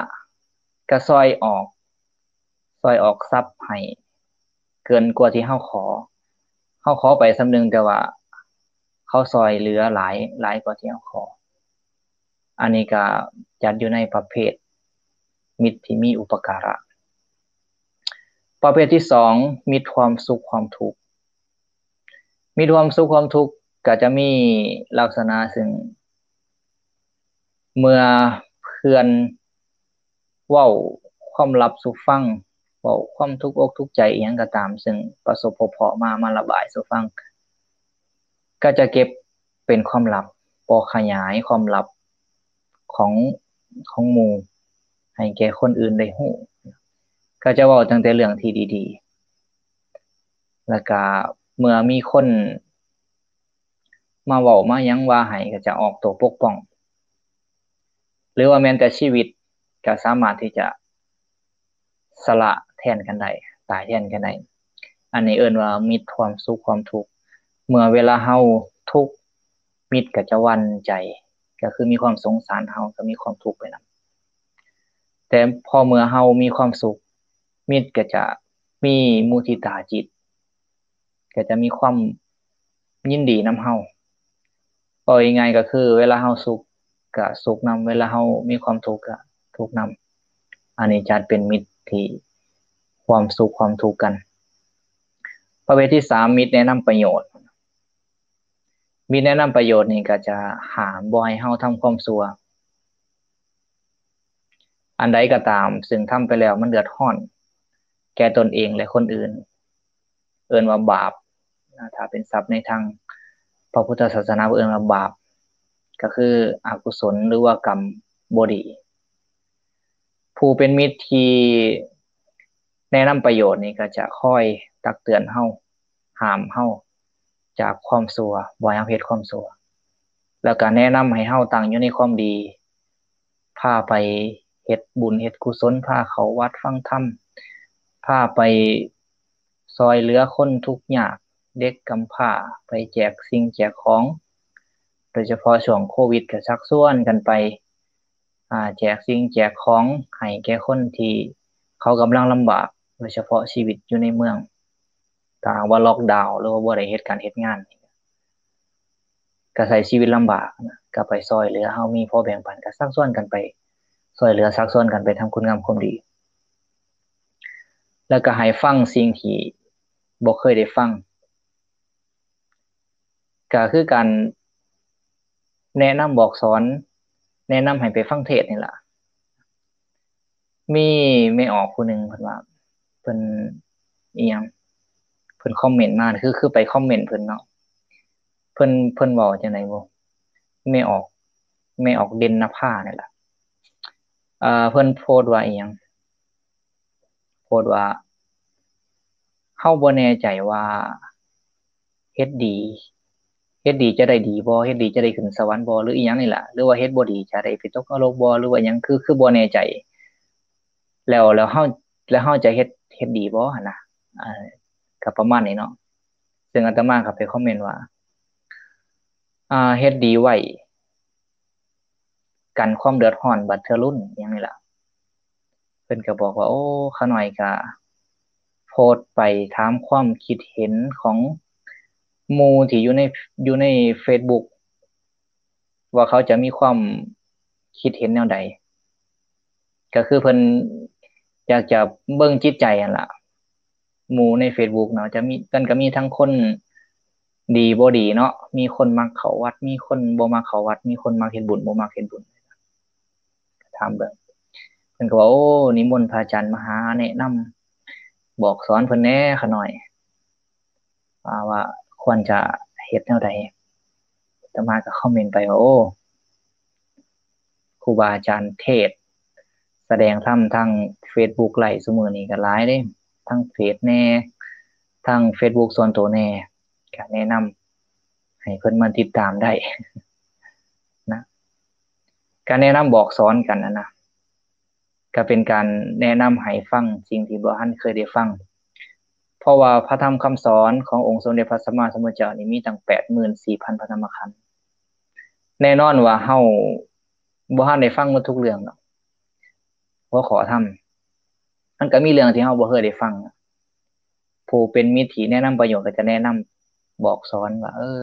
ກໍຊ່ອຍອອກ, ຊ່ອຍອອກຊັບໃຫ້ເກີນກວ່າທີ່ເຮົາຂໍ. ເຮົາຂໍໄປສ່ຳໜຶ່ງ, ແຕ່ວ່າເຂົາຊ່ອຍເຫຼືອຫຼາຍ, ຫຼາຍກວ່າທີ່ເຮົາຂໍ. ອັນນີ້ກໍຈັດຢູ່ໃນປະເພດມິດທີ່ມີອຸປະກາລະ. ປະເພດທີສອງ ມິດຄວາມສຸກຄວາມທຸກ. ມິດຄວາມສຸກຄວາມທຸກກໍຈະມີລັກສະນະເຊິ່ງ ເມື່ອ อน ເວົ້າຄວາມລັບສູ່ຟັງ, ເວົ້າຄວາມທຸກອົກທຸກໃຈອີ່ຫຍັງກໍຕາມ ເຊິ່ງປະສົບພົບເພາະມາ ມາລະບາຍສູ່ຟັງ ກໍຈະເກັບເປັນຄວາມລັບ, ບໍ່ຂະຫຍາຍຄວາມລັບຂອງ ຂອງໝູ່ໃຫ້ແກ່ຄົນອື່ນໄດ້ຮູ້. ກໍຈະເວົ້າຕັ້ງແຕ່ເລື່ອງທີ່ດີໆ ແລ້ວກໍເມື່ອມີຄົນ ມາເວົ້າມາຫຍັງວ່າໃຫ້ ກໍຈະອອກໂຕປົກປ້ອງ ຫຼືວ່າແມ່ນແຕ່ຊີວິດກໍສາມາດທີ່ຈະສະຫຼະແທນກັນໄດ້, ຕາຍແທນກັນໄດ້. ອັນນີ້ເອີ້ນວ່າມິດຄວາມສຸກຄວາມທຸກ. ເມື່ອເວລາເຮົາທຸກ, ມິດກໍຈະຫວັ່ນໃຈ, ກໍຄືມີຄວາມສົງສານເຮົາ, ກໍມີຄວາມທຸກໄປນຳ. ແຕ່ພໍເມື່ອເຮົາມີຄວາມສຸກ, ມິດກໍຈະມີມຸທິຕາຈິດ, ກໍຈະມີຄວາມຍິນດີນຳເຮົາ. ເວົ້າງ່າຍໆກໍຄື ເວລາເຮົາສຸກກໍສຸກນຳ, ເວລາເຮົາມີຄວາມທຸກກໍທຸກນຳ. ອັນນີ້ຈັດເປັນມິດທີ່ຄວາມສຸກຄວາມທຸກກັນ. ປະເພດທີສາມ ມິດແນະນຳປະໂຫຍດ. ມິດແນະນຳປະໂຫຍດນີ້ກໍຈະຫ້າມບໍ່ໃຫ້ເຮົາທຳຄວາມຊົ່ວ ອັນໃດກໍຕາມ ເຊິ່ງທຳໄປແລ້ວມັນເດືອດຮ້ອນແກ່ຕົນເອງ ແລະ ຄົນອື່ນ. ເອີ້ນວ່າບາບນະ, ຖ້າເປັນສັບໃນທາງພະພຸດທະສາສະໜາ ເອີ້ນວ່າບາບ, ກໍຄືອະກຸສົນ ຫຼືວ່າກຳບໍ່ດີ. ຜູ້ເປັນມິດທີ່ແນະນຳປະໂຫຍດນີ້ ກໍຈະຄອຍຕັກເຕືອນເຮົາ, ຫ້າມເຮົາຈາກຄວາມຊົ່ວ, ບໍ່ໃຫ້ເຮົາເຮັດຄວາມຊົ່ວ, ແລ້ວກໍແນະນຳໃຫ້ເຮົາຕັ້ງຢູ່ໃນຄວາມດີ, ພາໄປເຮັດບຸນເຮັດກຸສົນ, ພາເຂົ້າວັດຟັງທຳ, ພາໄປຊ່ອຍເຫຼືອຄົນທຸກຍາກ, ເດັກກຳພ້າ, ໄປແຈກສິ່ງແຈກຂອງ, ໂດຍສະເພາະຊ່ວງໂຄວິດກໍຊັກຊວນກັນໄປ ອາ ແຈກສິ່ງແຈກຂອງໃຫ້ແກ່ຄົນທີ່ເຂົາກຳລັງລຳບາກ, ໂດຍສະເພາະຊີວິດຢູ່ໃນເມືອງ. ຖ້າຫາກວ່າລັອກດາວ ຫຼືວ່າບໍ່ໄດ້ເຮັດການເຮັດງານ ກໍໃຊ້ຊີວິດລຳບາກນະ, ກໍໄປຊ່ອຍເຫຼືອ, ເຮົາມີພໍແບ່ງປັນ, ກໍຊັກຊວນກັນໄປຊ່ອຍເຫຼືອ, ຊັກຊວນກັນໄປທຳຄຸນງາມຄວາມດີ. ແລ້ວກໍໃຫ້ຟັງສິ່ງທີ່ບໍ່ເຄີຍໄດ້ຟັງ. ກໍຄືການແນະນຳບອກສອນ, ແນະນຳໃຫ້ໄປຟັງເທດນີ້ລະ. ມີແມ່ອອກຜູ້ໜຶ່ງ ເພິ່ນວ່າ ເພິ່ນ ອີ່ຫຍັງ ເພິ່ນຄອມເມັນມາ, ຄື ຄືໄປຄອມເມັນເພິ່ນເນາະ, ເພິ່ນ ເພິ່ນເວົ້າຈັ່ງໃດບໍ່ ແມ່ອອກ ແມ່ອອກເດັ່ນນະພານີ້ລະ. ເອີ ເພິ່ນໂພສວ່າອີ່ຫຍັງ ໂພສວ່າ ເຮົາບໍ່ແນ່ໃຈວ່າເຮັດດີ ເຮັດດີຈະໄດ້ດີບໍ່, ເຮັດດີຈະໄດ້ຂຶ້ນສະຫວັນບໍ່ ຫຼືອີ່ຫຍັງນີ້ລະ, ຫຼືວ່າເຮັດບໍ່ດີຈະໄດ້ໄປຕົກນະລົກບໍ່ ຫຼືວ່າຫຍັງ, ຄື ຄືບໍ່ແນ່ໃຈ. ແລ້ວ ແລ້ວເຮົາ ແລ້ວເຮົາຈະເຮັດ ເຮັດດີບໍ່ຫັ້ນນະ. ເອີ ກໍປະມານນີ້ເນາະ. ເຊິ່ງອາດຕະມາກໍໄປຄອມເມັນວ່າ ອາ ເຮັດດີໄວ້ ກັນຄວາມເດືອດຮ້ອນບັດເທື່ອລຸ້ນ ຫຍັງນີ້ລະ. ເພິ່ນກໍບອກວ່າ ໂອ້ ຂ້ານ້ອຍກໍໂພສໄປຖາມຄວາມຄິດເຫັນຂອງໝູ່ທີ່ຢູ່ໃນ ຢູ່ໃນເຟສບຸກ ວ່າເຂົາຈະມີຄວາມຄິດເຫັນແນວໃດ. ກໍຄືເພິ່ນຢາກຈະເບິ່ງຈິດໃຈຫັ້ນລະ. ໝູ່ໃນເຟສບຸກເນາະ ຈະມີ ມັນກໍມີທັງຄົນດີບໍ່ດີເນາະ, ມີຄົນມັກເຂົ້າວັດ ມີຄົນບໍ່ມັກເຂົ້າວັດ, ມີຄົນມັກເຮັດບຸນບໍ່ມັກເຮັດບຸນ. ຖາມເບິ່ງ ເພິ່ນກໍວ່າ ໂອ້ ນິມົນພະອາຈານມາຫາແນະນຳບອກສອນເພິ່ນແດ່ຂ້ານ້ອຍ ວ່າ ວ່າຄວນຈະເຮັດແນວໃດ. ອາດຕະມາກໍຄອມເມັນໄປວ່າ ໂອ້ ຄູບາອາຈານເທດສະແດງທຳທາງເຟສບຸກໄລຟ໌ຊຸມື້ນີ້ກໍຫຼາຍເດ້, ທັງເຟສແດ່ ທັງເຟສບຸກສ່ວນໂຕແດ່, ກໍແນະນຳໃຫ້ເພິ່ນມາຕິດຕາມໄດ້ນະ. ການແນະນຳບອກສອນກັນຫັ້ນນະ ກໍເປັນການແນະນຳໃຫ້ຟັງສິ່ງທີ່ບໍ່ທັນເຄີຍໄດ້ຟັງ. ເພາະວ່າພະທຳຄຳສອນຂອງອົງສົມເດັດພະສຳມາສຳພຸດທະເຈົ້ານີ້ມີຕັ້ງແປດໝື່ນສີ່ພັນພະທຳມະຂັນ. ແນ່ນອນວ່າເຮົາບໍ່ທັນໄດ້ຟັງໝົດທຸກເລື່ອງດອກ. ຫົວຂໍ້ທຳ ມັນກໍມີເລື່ອງທີ່ເຮົາບໍ່ເຄີຍໄດ້ຟັງ. ຜູ້ເປັນມິດທີ່ແນະນຳປະໂຫຍດກໍຈະແນະນຳບອກສອນວ່າ ເອີ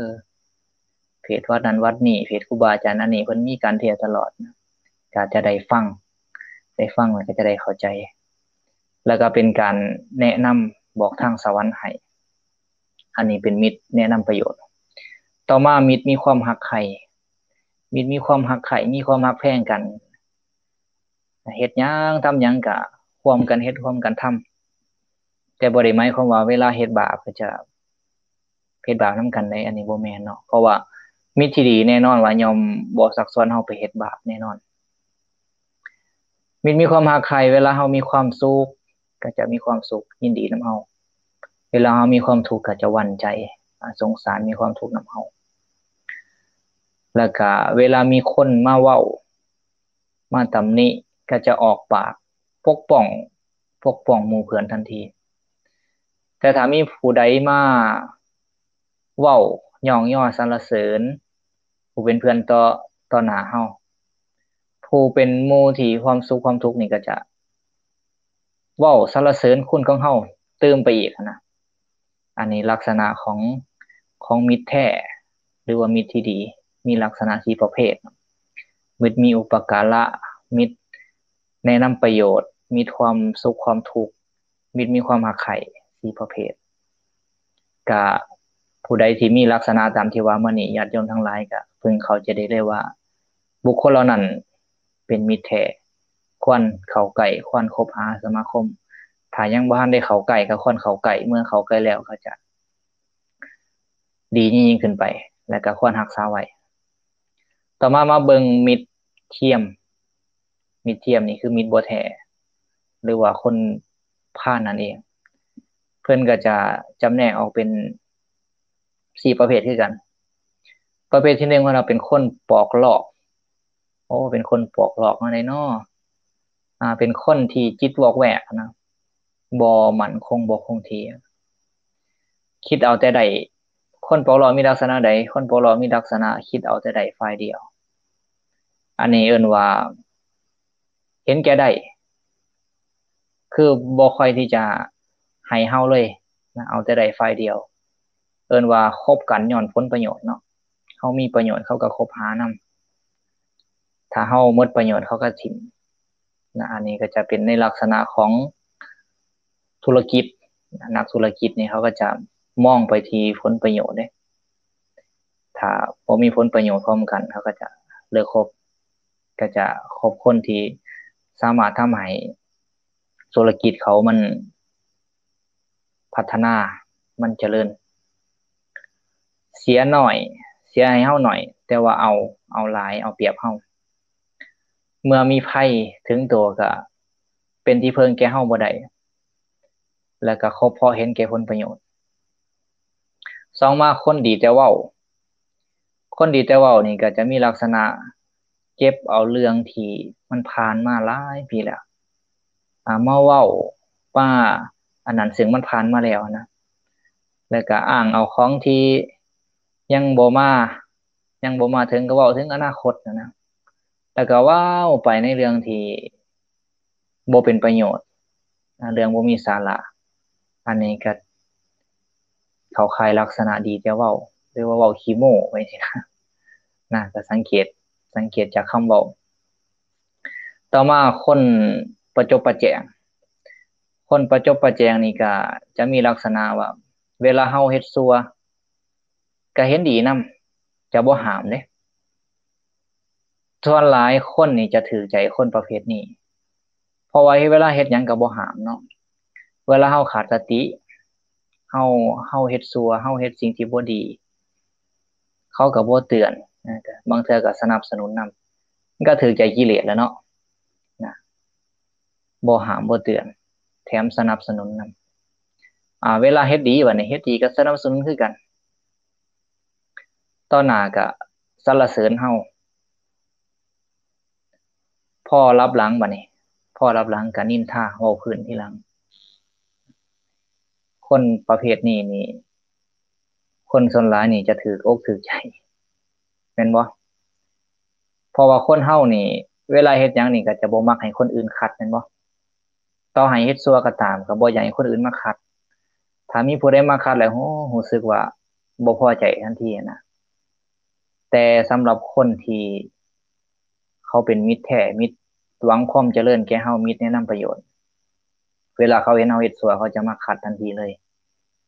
ເພດວັດນັ້ນວັດນີ້ ເພດຄູບາອາຈານອັນນີ້ ເພິ່ນມີການເທດຕະຫຼອດ, ກໍຈະໄດ້ຟັງ ໄດ້ຟັງແລ້ວກໍຈະໄດ້ເຂົ້າໃຈ, ແລ້ວກໍເປັນການແນະນຳບອກທາງສະຫວັນໃຫ້. ອັນນີ້ເປັນມິດແນະນຳປະໂຫຍດ. ຕໍ່ມາ ມິດມີຄວາມຮັກໃຄ່, ມິດມີຄວາມຮັກໃຄ່ ມີຄວາມຮັກແພງກັນ. ເຮັດຫຍັງທຳຫຍັງກະຮ່ວມກັນເຮັດ ຮ່ວມກັນທຳ ແຕ່ບໍ່ໄດ້ໝາຍຄວາມວ່າເວລາເຮັດບາບກໍຈະເຮັດບາບນຳກັນໃດ໋ ອັນນີ້ບໍ່ແມ່ນເນາະ ເພາະວ່າມິດທີ່ດີແນ່ນອນວ່າຍ່ອມບໍ່ຊັກຊວນເຮົາໄປເຮັດບາບແນ່ນອນ. ມິດມີຄວາມຮັກໃຄ່ ເວລາເຮົາມີຄວາມສຸກກໍຈະມີຄວາມສຸກ ຍິນດີນຳເຮົາ, ເວລາເຮົາມີຄວາມທຸກກໍຈະຫວັ່ນໃຈ ອາ ສົງສານ ມີຄວາມທຸກນຳເຮົາ. ແລ້ວກະເວລາມີຄົນມາເວົ້າ ມາຕຳໜິ ກໍຈະອອກປາກປົກປ້ອງ ປົກປ້ອງໝູ່ເພື່ອນທັນທີ. ແຕ່ຖ້າມີຜູ້ໃດມາເວົ້າຍ້ອງຍໍສັນລະເສີນຜູ້ເປັນເພື່ອນຕໍ່ ຕໍ່ໜ້າເຮົາ, ຜູ້ເປັນໝູ່ທີ່ຄວາມສຸກຄວາມທຸກນີ້ກໍຈະເວົ້າສັນລະເສີນຄຸນຂອງເຮົາຕື່ມໄປອີກຫັ້ນນະ. ອັນນີ້ລັກສະນະຂອງ ຂອງມິດແທ້ ຫຼືວ່າມິດທີ່ດີ ມີລັກສະນະສີ່ປະເພດ. ມິດມີອຸປະກາລະ, ມິດແນະນຳປະໂຫຍດ, ມິດຄວາມສຸກຄວາມທຸກ, ມິດມີຄວາມຮັກໃຄ່ ສີ່ປະເພດ. ກະຜູ້ໃດທີ່ມີລັກສະນະຕາມທີ່ວ່າມານີ້ ຍາດໂຍມທັງຫຼາຍກະເພິ່ງເຂົ້າໃຈໄດ້ເລີຍວ່າ ບຸກຄົນເຫຼົ່ານັ້ນເປັນມິດແທ້ ຄວນເຂົ້າໃກ້ ຄວນຄົບຫາສະມາຄົມ. ຖ້າຍັງບໍ່ທັນໄດ້ເຂົ້າໃກ້ ກໍຄວນເຂົ້າໃກ້, ເມື່ອເຂົ້າໃກ້ແລ້ວກໍຈະດີຍິ່ງໆຂຶ້ນໄປ ແລະກໍຄວນຮັກສາໄວ້. ຕໍ່ມາມາເບິ່ງມິດທຽມ. ມິດທຽມນີ້ຄືມິດບໍ່ແທ້ ຫຼືວ່າຄົນພານນັ້ນເອງ. ເພິ່ນກໍຈະຈຳແນກອອກເປັນສີ່ປະເພດຄືກັນ. ປະເພດທີໜຶ່ງ ເພິ່ນວ່າເປັນຄົນປອກລອກ. ໂອ້ ເປັນຄົນປອກລອກແນວໃດນໍ? ອາ ເປັນຄົນທີ່ຈິດວອກແວກນະ, ບໍ່ໝັ້ນຄົງ ບໍ່ຄົງທີ່, ຄິດເອົາແຕ່ໄດ້. ຄົນປອກລອກມີລັກສະນະໃດ? ຄົນປອກລອກມີລັກສະນະຄິດເອົາແຕ່ໄດ້ຝ່າຍດຽວ. ອັນນີ້ເອີ້ນວ່າເຫັນແກ່ໄດ້ ຄືບໍ່ຄ່ອຍທີ່ຈະໃຫ້ເຮົາເລີຍນະ, ເອົາແຕ່ໄດ້ຝ່າຍດຽວ. ເອີ້ນວ່າຄົບກັນຍ້ອນຜົນປະໂຫຍດເນາະ, ເຮົາມີປະໂຫຍດເຂົາກໍຄົບຫານຳ, ຖ້າເຮົາໝົດປະໂຫຍດເຂົາກໍຖິ້ມນະ. ອັນນີ້ກໍຈະເປັນໃນລັກສະນະຂອງທຸລະກິດ, ນັກທຸລະກິດນີ້ເຂົາກໍຈະມອງໄປທີ່ຜົນປະໂຫຍດເດ້. ຖ້າບໍ່ມີຜົນປະໂຫຍດພ້ອມກັນ ເຂົາກໍຈະເລີກຄົບ, ກໍຈະຄົບຄົນທີ່ສາມາດທຳໃຫ້ທຸລະກິດເຂົາມັນພັດທະນາ, ມັນຈະເລີນ. ເສຍໜ້ອຍ, ເສຍໃຫ້ເຮົາໜ້ອຍ ແຕ່ວ່າເອົາ, ເອົາຫຼາຍ, ເອົາປຽບເຮົາ. ເມື່ອມີໄພເຖິງໂຕກໍເປັນທີ່ເພິ່ງແກ່ເຮົາບໍ່ໄດ້ ແລ້ວກໍຄົບເພາະເຫັນແກ່ຜົນປະໂຫຍດ. ສອງມາ ຄົນດີແຕ່ເວົ້າ. ຄົນດີແຕ່ເວົ້ານີ້ກໍຈະມີລັກສະນະເກັບເອົາເລື່ອງທີ່ມັນຜ່ານມາຫຼາຍປີແລ້ວ ອາ ມາເວົ້າ ມາອັນນັ້ນ ເຊິ່ງມັນຜ່ານມາແລ້ວນະ, ແລ້ວກໍອ້າງເອົາຂອງທີ່ຍັງບໍ່ມາ, ຍັງບໍ່ມາເຖິງ ກໍເວົ້າເຖິງອະນາຄົດນະ, ແລ້ວກໍເວົ້າໄປໃນເລື່ອງທີ່ ບໍ່ເປັນປະໂຫຍດ, ເລື່ອງບໍ່ມີສາລະ. ອັນນີ້ກໍເຂົ້າຂ່າຍລັກສະນະດີແຕ່ເວົ້າ ຫຼືວ່າເວົ້າຂີ້ໂມ້ໄປຊີ້ນະ, ນະ, ກໍສັງເກດ, ສັງເກດຈາກຄຳເວົ້າ. ຕໍ່ມາ ຄົນປະຈົບປະແຈງ. ຄົນປະຈົບປະແຈງນີ້ກໍຈະມີລັກສະນະວ່າ ເວລາເຮົາເຮັດຊົ່ວ ກໍເຫັນດີນຳ, ຈະບໍ່ຫ້າມເດ້. ສ່ວນຫຼາຍຄົນນີ້ຈະຖືກໃຈຄົນປະເພດນີ້ ເພາະວ່າເວລາເຮັດຫຍັງກໍບໍ່ຫ້າມເນາະ. ເວລາເຮົາຂາດສະຕິ, ເຮົາ, ເຮົາເຮັດຊົ່ວ, ເຮົາເຮັດສິ່ງທີ່ບໍ່ດີ, ເຂົາກໍບໍ່ເຕືອນ, ບາງເທື່ອກໍສະໜັບສະໜູນນຳ, ມັນກໍຖືກໃຈກິເລດແລ້ວເນາະ, ນະ. ບໍ່ຫ້າມບໍ່ເຕືອນ ແຖມສະໜັບສະໜູນນຳ. ອາ ເວລາເຮັດດີ ບາດນີ້ເຮັດດີກໍສະໜັບສະໜູນຄືກັນ, ຕໍ່ໜ້າກໍສັນລະເສີນເຮົາ, ພໍລັບຫຼັງ ບາດນີ້ ພໍລັບຫຼັງກໍນິນທາເວົ້າພື້ນທີຫຼັງ. ຄົນປະເພດນີ້ນີ້ ຄົນສ່ວນຫຼາຍນີ້ຈະຖືກອົກຖືກໃຈ ແມ່ນບໍ່? ເພາະວ່າຄົນເຮົານີ້ ເວລາເຮັດຫຍັງນີ້ກໍຈະບໍ່ມັກໃຫ້ຄົນອື່ນຂັດ ແມ່ນບໍ່? ຕໍ່ໃຫ້ເຮັດຊົ່ວກໍຕາມ ກໍບໍ່ຢາກໃຫ້ຄົນອື່ນມາຂັດ. ຖ້າມີຜູ້ໃດມາຂັດແລ້ວ ໂອ້ ຮູ້ສຶກວ່າບໍ່ພໍໃຈທັນທີນະ. ແຕ່ສຳລັບຄົນທີ່ເຂົາເປັນມິດແທ້ ມິດຫວັງຄວາມຈະເລີນແກ່ເຮົາ, ມິດແນະນຳປະໂຫຍດ, ເວລາເຂົາເຫັນເຮົາເຮັດຊົ່ວ ເຂົາຈະມາຂັດທັນທີເລີຍ.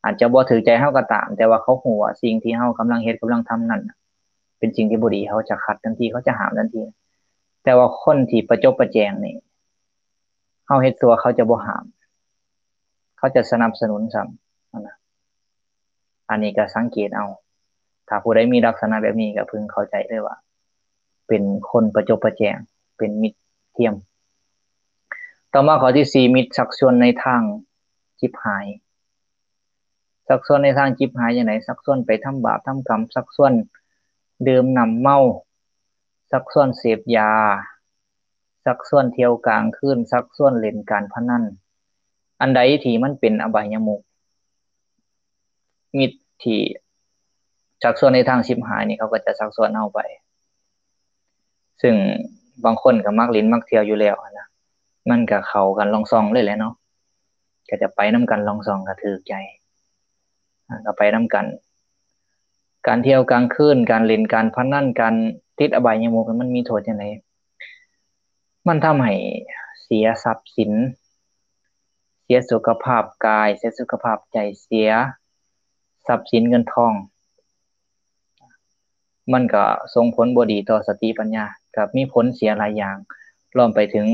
ອາດຈະບໍ່ຖືກໃຈເຮົາກໍຕາມ, ແຕ່ວ່າເຂົາຮູ້ວ່າສິ່ງທີ່ເຮົາກຳລັງເຮັດ, ກຳລັງທຳນັ້ນ ເປັນສິ່ງທີ່ບໍ່ດີ, ເຂົາຈະຂັດທັນທີ, ເຂົາຈະຫ້າມທັນທີ. ແຕ່ວ່າຄົນທີ່ປະຈົບປະແຈງນີ້ ເຮົາເຮັດຊົ່ວເຂົາຈະບໍ່ຫ້າມ ເຂົາຈະສະໜັບສະໜູນຊ້ຳຫັ້ນນະ. ອັນນີ້ກໍສັງເກດເອົາ ຖ້າຜູ້ໃດມີລັກສະນະແບບນີ້ກໍເພິ່ງເຂົ້າໃຈເລີຍວ່າ ເປັນຄົນປະຈົບປະແຈງ ເປັນມິດທຽມ. ຕໍ່ມາຂໍ້ທີສີ່ ມິດຊັກຊວນໃນທາງຈິບຫາຍ. ຊັກຊວນໃນທາງຈິບຫາຍຈັ່ງໃດ? ຊັກຊວນໄປທຳບາບທຳກຳ, ຊັກຊວນດື່ມນ້ຳເມົາ, ຊັກຊວນເສບຢາ, ຊັກຊວນທ່ຽວກາງຄືນ, ຊັກຊວນຫຼິ້ນການພະນັນ. ອັນໃດທີ່ມັນເປັນອະບາຍຍະມຸກ, ມິດທີ່ຊັກຊວນໃນທາງຊິບຫາຍນີ້ ເຂົາກໍຈະຊັກຊວນເຮົາໄປ. ຊຶ່ງບາງຄົນກໍມັກຫຼິ້ນມັກທ່ຽວຢູ່ແລ້ວຫັ້ນນະ, ມັນກໍເຂົ້າກັນລ່ອງຊ່ອງເລີຍແຫຼະເນາະ, ກໍຈະໄປນຳກັນລ່ອງຊ່ອງ ກໍຖືກໃຈ, ກໍໄປນຳກັນ. ການທ່ຽວກາງຄືນ, ການຫຼິ້ນການພະນັນ, ການຕິດອະບາຍຍະມຸກ ມັນມີໂທດຈັ່ງໃດ? ມັນທຳໃຫ້ເສຍຊັບສິນ, ເສຍສຸຂະພາບກາຍ, ເສຍສຸຂະພາບໃຈ, ເສຍຊັບສິນເງິນທອງ. ມັນກໍສົ່ງຜົນບໍ່ດີຕໍ່ສະຕິປັນຍາ, ກໍມີຜົນເສຍຫຼາຍຢ່າງ, ລວມໄປເຖິງ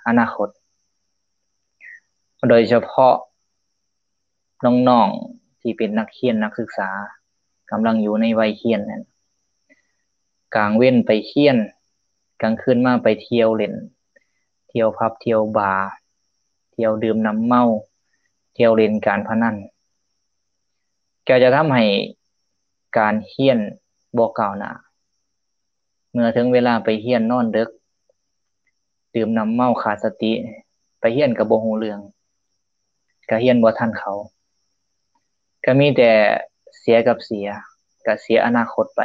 ອະນາຄົດ. ໂດຍສະເພາະນ້ອງໆທີ່ເປັນນັກຮຽນນັກສຶກສາ ກຳລັງຢູ່ໃນໄວຮຽນນັ້ນ, ກາງເວັນໄປຮຽນ, ກາງຄືນມາໄປທ່ຽວຫຼິ້ນ, ທ່ຽວຜັບທ່ຽວບາ, ທ່ຽວດື່ມນ້ຳເມົາ, ທ່ຽວຫຼິ້ນການພະນັນ, ກໍຈະທຳໃຫ້ການຮຽນບໍ່ກ້າວໜ້າ. ເມື່ອເຖິງເວລາໄປຮຽນນອນເດິກ, ດື່ມນ້ຳເມົາຂາດສະຕິ, ໄປຮຽນກໍບໍ່ຮູ້ເລື່ອງ, ກໍຮຽນບໍ່ທັນເຂົາ, ກໍມີແຕ່ເສຍກັບເສຍ, ກໍເສຍອະນາຄົດໄປ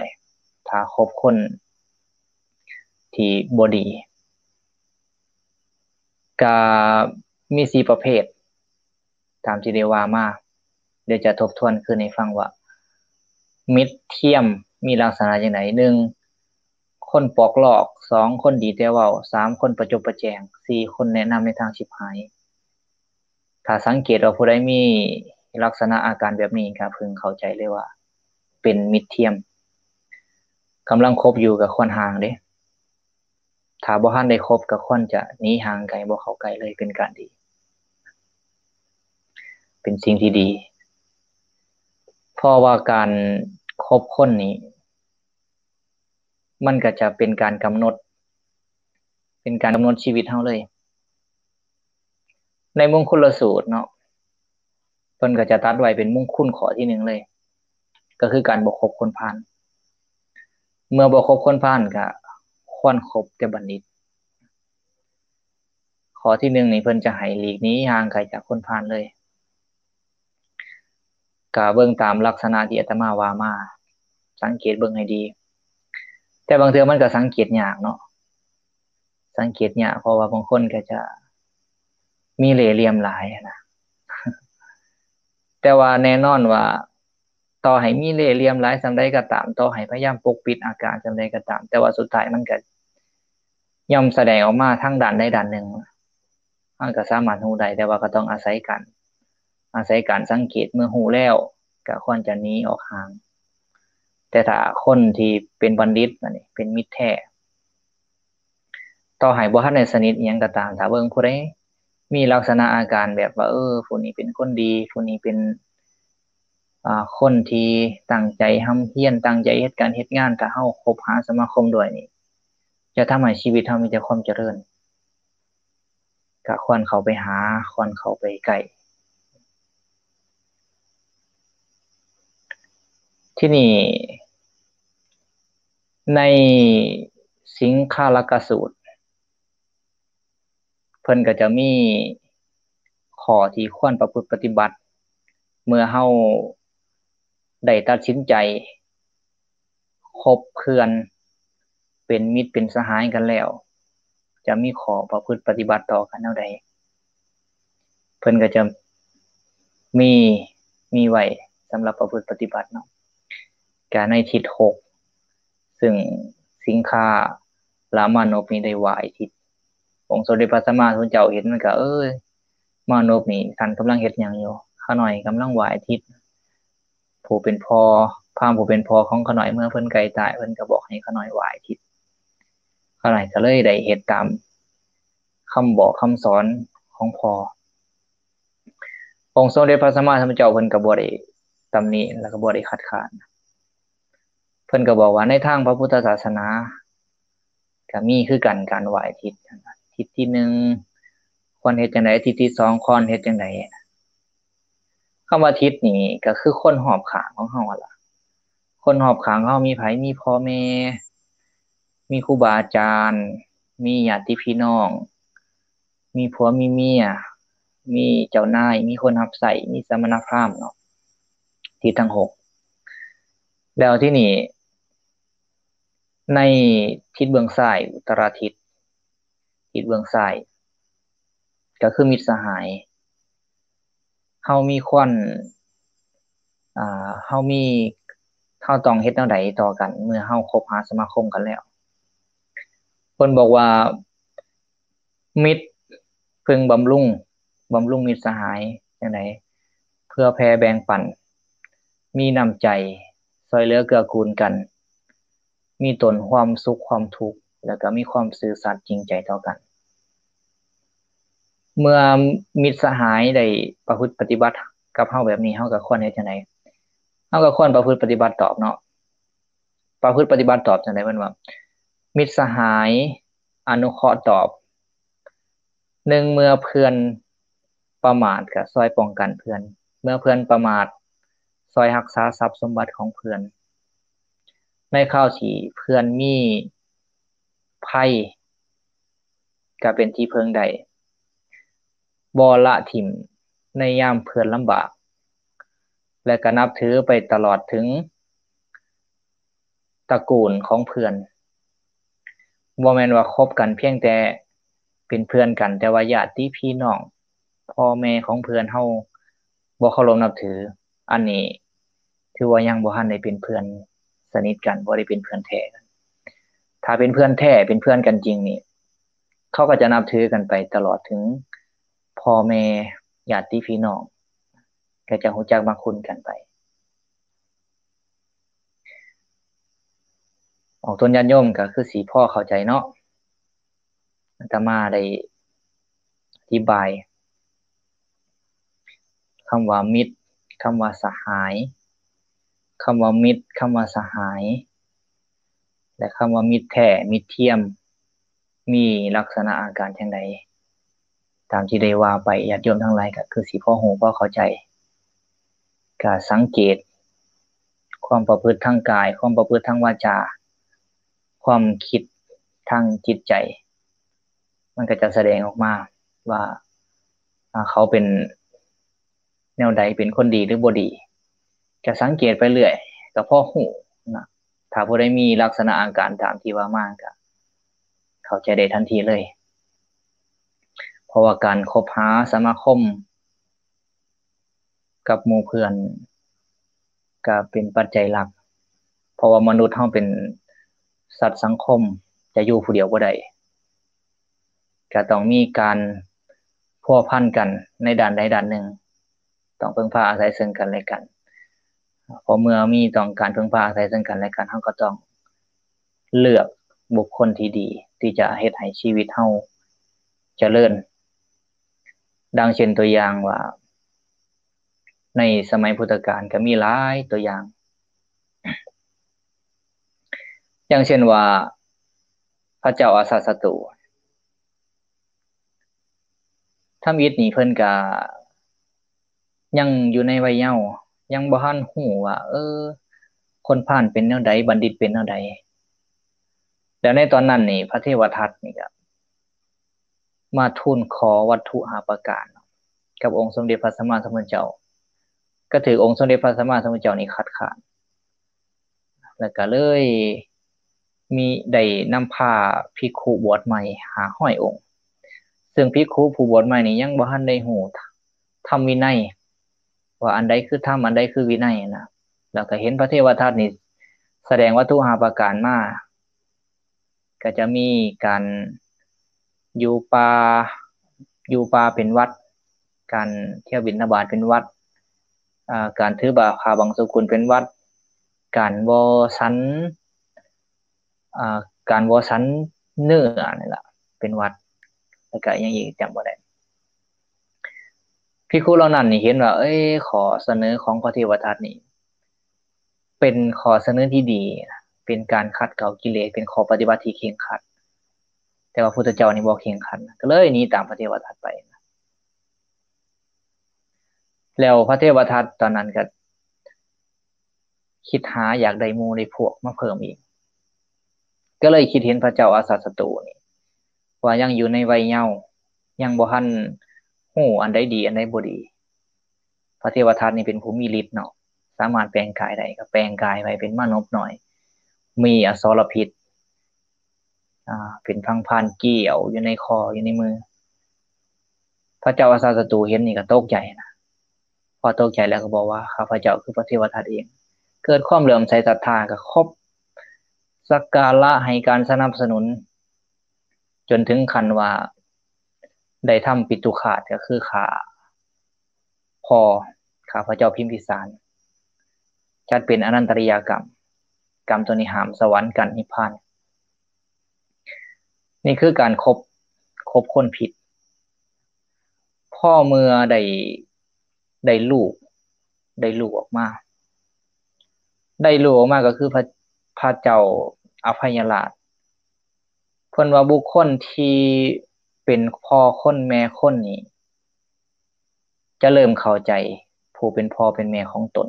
ຖ້າຄົບຄົນທີ່ບໍ່ດີ. ກໍມີສີ່ປະເພດ ຕາມທີ່ໄດ້ວ່າມາ, ດຽວຈະທົບທວນຄືນໃຫ້ຟັງວ່າ ມິດທຽມມີລັກສະນະຈັ່ງໃດ. ໜຶ່ງ ຄົນປອກລອກ, ສອງ ຄົນດີແຕ່ເວົ້າ, ສາມ ຄົນປະຈົບປະແຈງ, ສີ່ ຄົນແນະນຳໃນທາງຊິບຫາຍ. ຖ້າສັງເກດວ່າຜູ້ໃດມີລັກສະນະອາການແບບນີ້ ກໍເພິ່ງເຂົ້າໃຈເລີຍວ່າເປັນມິດທຽມ. ກຳລັງຄົບຢູ່ກໍຄວນຫ່າງເດ້. ຖ້າບໍ່ທັນໄດ້ຄົບກໍຄວນຈະໜີຫ່າງໄກ, ບໍ່ເຂົ້າໃກ້ເລີຍ ເປັນການດີ, ເປັນສິ່ງທີ່ດີ. ເພາະວ່າການຄົບຄົນນີ້ ມັນກໍຈະເປັນການກຳນົດ, ເປັນການກຳນົດຊີວິດເຮົາເລີຍ. ໃນມົງຄຸນລະສູດເນາະ, ເພິ່ນກໍຈະຕັດໄວ້ເປັນມົງຄຸນຂໍ້ທີໜຶ່ງເລີຍ, ກໍຄືການບໍ່ຄົບຄົນພານ. ເມື່ອບໍ່ຄົບຄົນພານ ກໍຄວນຄົບແຕ່ບັນດິດ. ຂໍ້ທີໜຶ່ງນີ້ ເພິ່ນຈະໃຫ້ຫຼີກໜີຫ່າງໄກຈາກຄົນພານເລີຍ. ກະເບິ່ງຕາມລັກສະນະທີ່ອາດຕະມາວ່າມາ, ສັງເກດເບິ່ງໃຫ້ດີ. ແຕ່ບາງເທື່ອມັນກໍສັງເກດຍາກເນາະ, ສັງເກດຍາກ ເພາະວ່າບາງຄົນກໍຈະມີເລ່ຫຼ່ຽມຫຼາຍນະ. ແຕ່ວ່າແນ່ນອນວ່າ ຕໍ່ໃຫ້ມີເລ່ຫຼ່ຽມຫຼາຍສ່ຳໃດກໍຕາມ, ຕໍ່ໃຫ້ພະຍາຍາມປົກປິດອາການສ່ຳໃດກໍຕາມ, ແຕ່ວ່າສຸດທ້າຍມັນກໍຍ່ອມສະແດງອອກມາທາງດ້ານໃດດ້ານໜຶ່ງ. ເຮົາກໍສາມາດຮູ້ໄດ້, ແຕ່ວ່າກໍຕ້ອງອາໄສການ, ອາໄສການສັງເກດ. ເມື່ອຮູ້ແລ້ວກໍຄວນຈະໜີອອກຫ່າງ. ແຕ່ຖ້າຄົນທີ່ເປັນບັນດິດ, ອັນນີ້ເປັນມິດແທ້, ຕໍ່ໃຫ້ບໍ່ທັນໄດ້ສະໜິດອີ່ຫຍັງກໍຕາມ, ຖ້າເບິ່ງຜູ້ໃດມີລັກສະນະອາການແບບວ່າ ເອີ ຜູ້ນີ້ເປັນຄົນດີ, ຜູ້ນີ້ເປັນ ອາ ຄົນທີ່ຕັ້ງໃຈຮ່ຳຮຽນ, ຕັ້ງໃຈເຮັດການເຮັດງານ, ຖ້າເຮົາຄົບຫາສະມາຄົມດ້ວຍນີ້ ຈະທຳໃຫ້ຊີວິດເຮົາມີແຕ່ຄວາມຈະເລີນ. ກະຄວນເຂົ້າໄປຫາ, ຄວນເຂົ້າໄປໃກ້. ທີນີ້ ໃນສິງຄາລະກະສູດ ເພິ່ນກໍຈະມີຂໍ້ທີ່ຄວນປະພຶດປະຕິບັດ ເມື່ອເຮົາໄດ້ຕັດສິນໃຈຄົບເພື່ອນ ເປັນມິດເປັນສະຫາຍກັນແລ້ວ ຈະມີຂໍ້ປະພຶດປະຕິບັດຕໍ່ກັນແນວໃດ? ເພິ່ນກໍຈະມີ, ມີໄວ້ສຳລັບປະພຶດປະຕິບັດເນາະ. ກະໃນທິດຫົກ ຊຶ່ງສິງຄາລະມານົບນີ້ໄດ້ຫວ້າຍທິດ. ອົງສົມເດັດພະສຳມາສຳພຸດທະເຈົ້າເຫັນ ມັນກໍ ເອີຍ ມານົບນີ້ ທ່ານກຳລັງເຮັດຫຍັງຢູ່? ຂ້ານ້ອຍກຳລັງຫວ້າຍທິດ. ຜູ້ເປັນພໍ່, ພາມຜູ້ເປັນພໍ່ຂອງຂ້ານ້ອຍ ເມື່ອເພິ່ນໃກ້ຕາຍ ເພິ່ນກໍບອກໃຫ້ຂ້ານ້ອຍຫວ້າຍທິດ. ຂ້ານ້ອຍກໍເລີຍໄດ້ເຮັດຕາມຄຳບອກຄຳສອນຂ ອງພໍ່. ອົງສົມເດັດພະສຳມາສຳພຸດທະເຈົ້າເພິ່ນກໍບໍ່ໄດ້ຕຳໜິ ແລ້ວກໍບໍ່ໄດ້ຄັດຄ້ານ. ເພິ່ນກໍບອກວ່າໃນທາງພະພຸດທະສາສະໜາກໍມີຄືກັນ ການໄຫວ້ທິດ, ທິດທີໜຶ່ງຄວນເຮັດຈັ່ງໃດ, ທິດທີສອງຄວນເຮັດຈັ່ງໃດ. ຄຳວ່າທິດນີ້ກໍຄືຄົນຮອບຂ້າງຂອງເຮົາຫັ້ນລະ. ຄົນຮອບຂ້າງເຮົາມີໃຜ? ມີພໍ່ແມ່, ມີຄູບາອາຈານ, ມີຍາດຕິພີ່ນ້ອງ, ມີຜົວມີເມຍ, ມີເຈົ້ານາຍ, ມີຄົນຮັບໃຊ້, ມີສະມະນະພາມເນາະ, ທິດທັງຫົກ. ແລ້ວທີນີ້ ໃນທິດເບື້ອງຊ້າຍ ອຸດຕະລະທິດ ທິດເບື້ອງຊ້າຍ ກໍຄືມິດສະຫາຍ. ເຮົາມີຄວນ ອ່າ ເຮົາມີ ເຮົາຕ້ອງເຮັດແນວໃດຕໍ່ກັນ ເມື່ອເຮົາຄົບຫາສະມາຄົມກັນແລ້ວ? ເພິ່ນບອກວ່າ ມິດເພິ່ງບຳລຸງ, ບຳລຸງມິດສະຫາຍຈັ່ງໃດ? ເພື່ອແຜ່ແບ່ງປັນ, ມີນ້ຳໃຈ, ຊ່ວຍເຫຼືອເກື້ອກູນກັນ, ມີຕົ້ນຄວາມສຸກຄວາມທຸກ ແລ້ວກໍມີຄວາມຊື່ສັດຈິງໃຈຕໍ່ກັນ. ເມື່ອມິດສະຫາຍໄດ້ປະພຶດປະຕິບັດກັບເຮົາແບບນີ້, ເຮົາກໍຄວນເຮັດຈັ່ງໃດ? ເຮົາກໍຄວນປະພຶດປະຕິບັດຕອບເນາະ. ປະພຶດປະຕິບັດຕອບຈັ່ງໃດ? ເພິ່ນວ່າ ມິດສະຫາຍອະນຸເຄາະຕອບ. ໜຶ່ງ ເມື່ອເພື່ອນປະໝາດກໍຊ່ອຍປ້ອງກັນເພື່ອນ, ເມື່ອເພື່ອນປະໝາດຊ່ອຍຮັກສາຊັບສົມບັດຂອງເພື່ອນ, ໃນຄາວທີ່ເພື່ອນມີໄພກໍເປັນທີ່ເພິ່ງໄດ້, ບໍ່ລະຖິ້ມໃນຍາມເພື່ອນລຳບາກ ແລະ ກໍນັບຖືໄປຕະຫຼອດເຖິງຕະກູນຂອງເພື່ອນ. ບໍ່ແມ່ນວ່າຄົບກັນພຽງແຕ່ເປັນເພື່ອນກັນ, ແຕ່ວ່າຍາດຕິພີ່ນ້ອງ ພໍ່ແມ່ຂອງເພື່ອນເຮົາບໍ່ເຄົາລົບນັບຖື, ອັນນີ້ຖືວ່າຍັງບໍ່ທັນໄດ້ເປັນເພື່ອນສະໜິດກັນ, ບໍ່ໄດ້ເປັນເພື່ອນແທ້ກັນ. ຖ້າເປັນເພື່ອນແທ້, ເປັນເພື່ອນກັນຈິງນີ້, ເຂົາກໍຈະນັບຖືກັນໄປຕະຫຼອດເຖິງພໍ່ແມ່, ຍາດຕິພີ່ນ້ອງ, ກໍຈະຮູ້ຈັກມັກຄຸນກັນໄປ. ອອກຕົນຍາດໂຍມກໍຄືຊິພໍເຂົ້າໃຈເນາະ. ອາດຕະມາໄດ້ອະທິບາຍຄຳວ່າມິດ, ຄຳວ່າສະຫາຍ, ຄຳວ່າມິດ, ຄຳວ່າສະຫາຍ ແລະ ຄຳວ່າມິດແທ້, ມິດທຽມ ມີລັກສະນະອາການຈັ່ງໃດ? ຕາມທີ່ໄດ້ວ່າໄປ, ຍາດໂຍມທັງຫຼາຍກໍຄືຊິພໍຮູ້ພໍເຂົ້າໃຈ. ກະສັງເກດຄວາມປະພຶດທາງກາຍ, ຄວາມປະພຶດທາງວາຈາ, ຄວາມຄິດທາງຈິດໃຈ, ມັນກໍຈະສະແດງອອກມາວ່າ ອາ ເຂົາເປັນແນວໃດ, ເປັນຄົນດີຫຼືບໍ່ດີ, ກະສັງເກດໄປເລື້ອຍ ກໍພໍຮູ້ນະ. ຖ້າຜູ້ໃດມີລັກສະນະອາການຕາມທີ່ວ່າມາ ກໍເຂົ້າໃຈໄດ້ທັນທີເລີຍ. ເພາະວ່າການຄົບຫາສະມາຄົມ ກັບໝູ່ເພື່ອນກະເປັນປັດໄຈຫຼັກ, ເພາະວ່າມະນຸດເຮົາເປັນສັດສັງຄົມ, ຈະຢູ່ຜູ້ດຽວບໍ່ໄດ້, ກະຕ້ອງມີການພົວພັນກັນໃນດ້ານໃດດ້ານໜຶ່ງ, ຕ້ອງເພິ່ງພາອາໄສເຊິ່ງກັນແລະກັນ. ເພາະເມື່ອມີຕ້ອງການເພິ່ງພາອາໄສເຊິ່ງກັນແລະກັນ, ເຮົາກໍຕ້ອງ ເລືອກບຸກຄົນທີ່ດີ ທີ່ຈະເຮັດໃຫ້ຊີວິດເຮົາຈະເລີນ. ດັ່ງເຊັ່ນຕົວຢ່າງວ່າ ໃນສະໄໝພຸດທະການກໍມີຫຼາຍຕົວຢ່າງ, ຢ່າງເຊັ່ນວ່າ ພະເຈົ້າອາຊາດສັດຕູ ທຳອິດນີ້ເພິ່ນກະຍັງຢູ່ໃນໄວເຍົາ, ຍັງບໍ່ທັນຮູ້ວ່າ ເອີ ຄົນພານເປັນແນວໃດ, ບັນດິດເປັນແນວໃດ. ແລ້ວໃນຕອນນັ້ນນີ້ ພະເທວະທັດນີ້ກະມາທູນຂໍວັດຖຸຫ້າປະການກັບອົງສົມເດັດພະສຳມາສຳພຸດທະເຈົ້າ, ກະຖືກອົງສົມເດັດພະສຳມາສຳພຸດທະເຈົ້ານີ້ຄັດຄ້ານ. ແລ້ວກະເລີຍມີ ໄດ້ນຳພາພິກຂຸບວດໃໝ່ຫ້າຮ້ອຍອົງ, ເຊິ່ງພິກຂຸຜູ້ບວດໃໝ່ນີ້ຍັງບໍ່ທັນໄດ້ຮູ້ທຳວິໄນ ວ່າອັນໃດຄືທຳ ອັນໃດຄືວິໄນນະ. ແລ້ວກະເຫັນພະເທວະທັດນີ້ສະແດງວັດຖຸຫ້າປະການມາ, ກະຈະມີການຢູ່ປ່າ ຢູ່ປ່າເປັນວັດ, ການທ່ຽວບິນທະບາດເປັນວັດ, ອາ ການຖືບາ ຜ້າບັງສຸກຸນເປັນວັດ, ການບໍ່ສັນ ອາ ການບໍ່ສັນເນື້ອນີ້ລະເປັນວັດ, ແລ້ວກະອີ່ຫຍັງອີກຈຳບໍ່ໄດ້. ພິກຂຸເຫຼົ່ານັ້ນນີ້ເຫັນວ່າ ເອີຍ ຂໍ້ສະເໜີຂອງພະເທວະທັດນີ້ ເປັນຂໍ້ສະເໜີທີ່ດີນະ ເປັນການຂັດເກົາກິເລດ ເປັນຂໍ້ປະຕິບັດທີ່ເຄັ່ງຄັດ. ແຕ່ວ່າພຸດທະເຈົ້ານີ້ບໍ່ເຄັ່ງຄັດ ກໍເລີຍໜີຕາມພະເທວະທັດໄປ. ແລ້ວພະເທວະທັດຕອນນັ້ນກໍຄິດຫາຢາກໄດ້ໝູ່ໄດ້ພວກມາເພີ່ມອີກ ກໍເລີຍຄິດເຫັນພະເຈົ້າອາຊາດສັດຕູນີ້ ວ່າຍັງຢູ່ໃນໄວເຍົາ ຍັງບໍ່ທັນຮູ້ອັນໃດດີອັນໃດບໍ່ດີ. ພະເທວະທັດນີ້ເປັນຜູ້ມີລິດເນາະ ສາມາດແປງກາຍໄດ້ ກໍແປງກາຍໄປເປັນມານົບນ້ອຍ ມີອະສອລະພິດ ອາ ເປັນພັງພານກ້ຽວຢູ່ໃນຄໍ ຢູ່ໃນມື. ພະເຈົ້າອາຊາດສັດຕູເຫັນນີ້ກໍຕົກໃຈນະ ພໍຕົກໃຈແລ້ວກໍບອກວ່າ ຂ້າພະເຈົ້າຄືພະເທວະທັດເອງ. ເກີດຄວາມເຫຼື້ອມໃສສັດທາ ກໍຄົບສັກກາລະໃຫ້ການສະໜັບສະໜູນ ຈົນເຖິງຂັ້ນວ່າໄດ້ທຳປິຕຸຄາດ ກໍຄືຂ້າພໍ່ ຂ້າພະເຈົ້າພິມພິສານ ຈັດເປັນອະນັນຕະລິຍະກຳ. ກຳຕົວນີ້ຫ້າມສະຫວັນກັ້ນນິບພານ. ນີ້ຄືການຄົບ ຄົບຄົນຜິດ. ພໍເມື່ອໄດ້ ໄດ້ລູກ ໄດ້ລູກອອກມາ ໄດ້ລູກອອກມາກໍຄືພະ ພະເຈົ້າອະໄພຍະລາດ. ເພິ່ນວ່າບຸກຄົນທີ່ເປັນພໍ່ຄົນແມ່ຄົນນີ້ ຈະເລີ່ມເຂົ້າໃຈຜູ້ເປັນພໍ່ເປັນແມ່ຂອງຕົນ.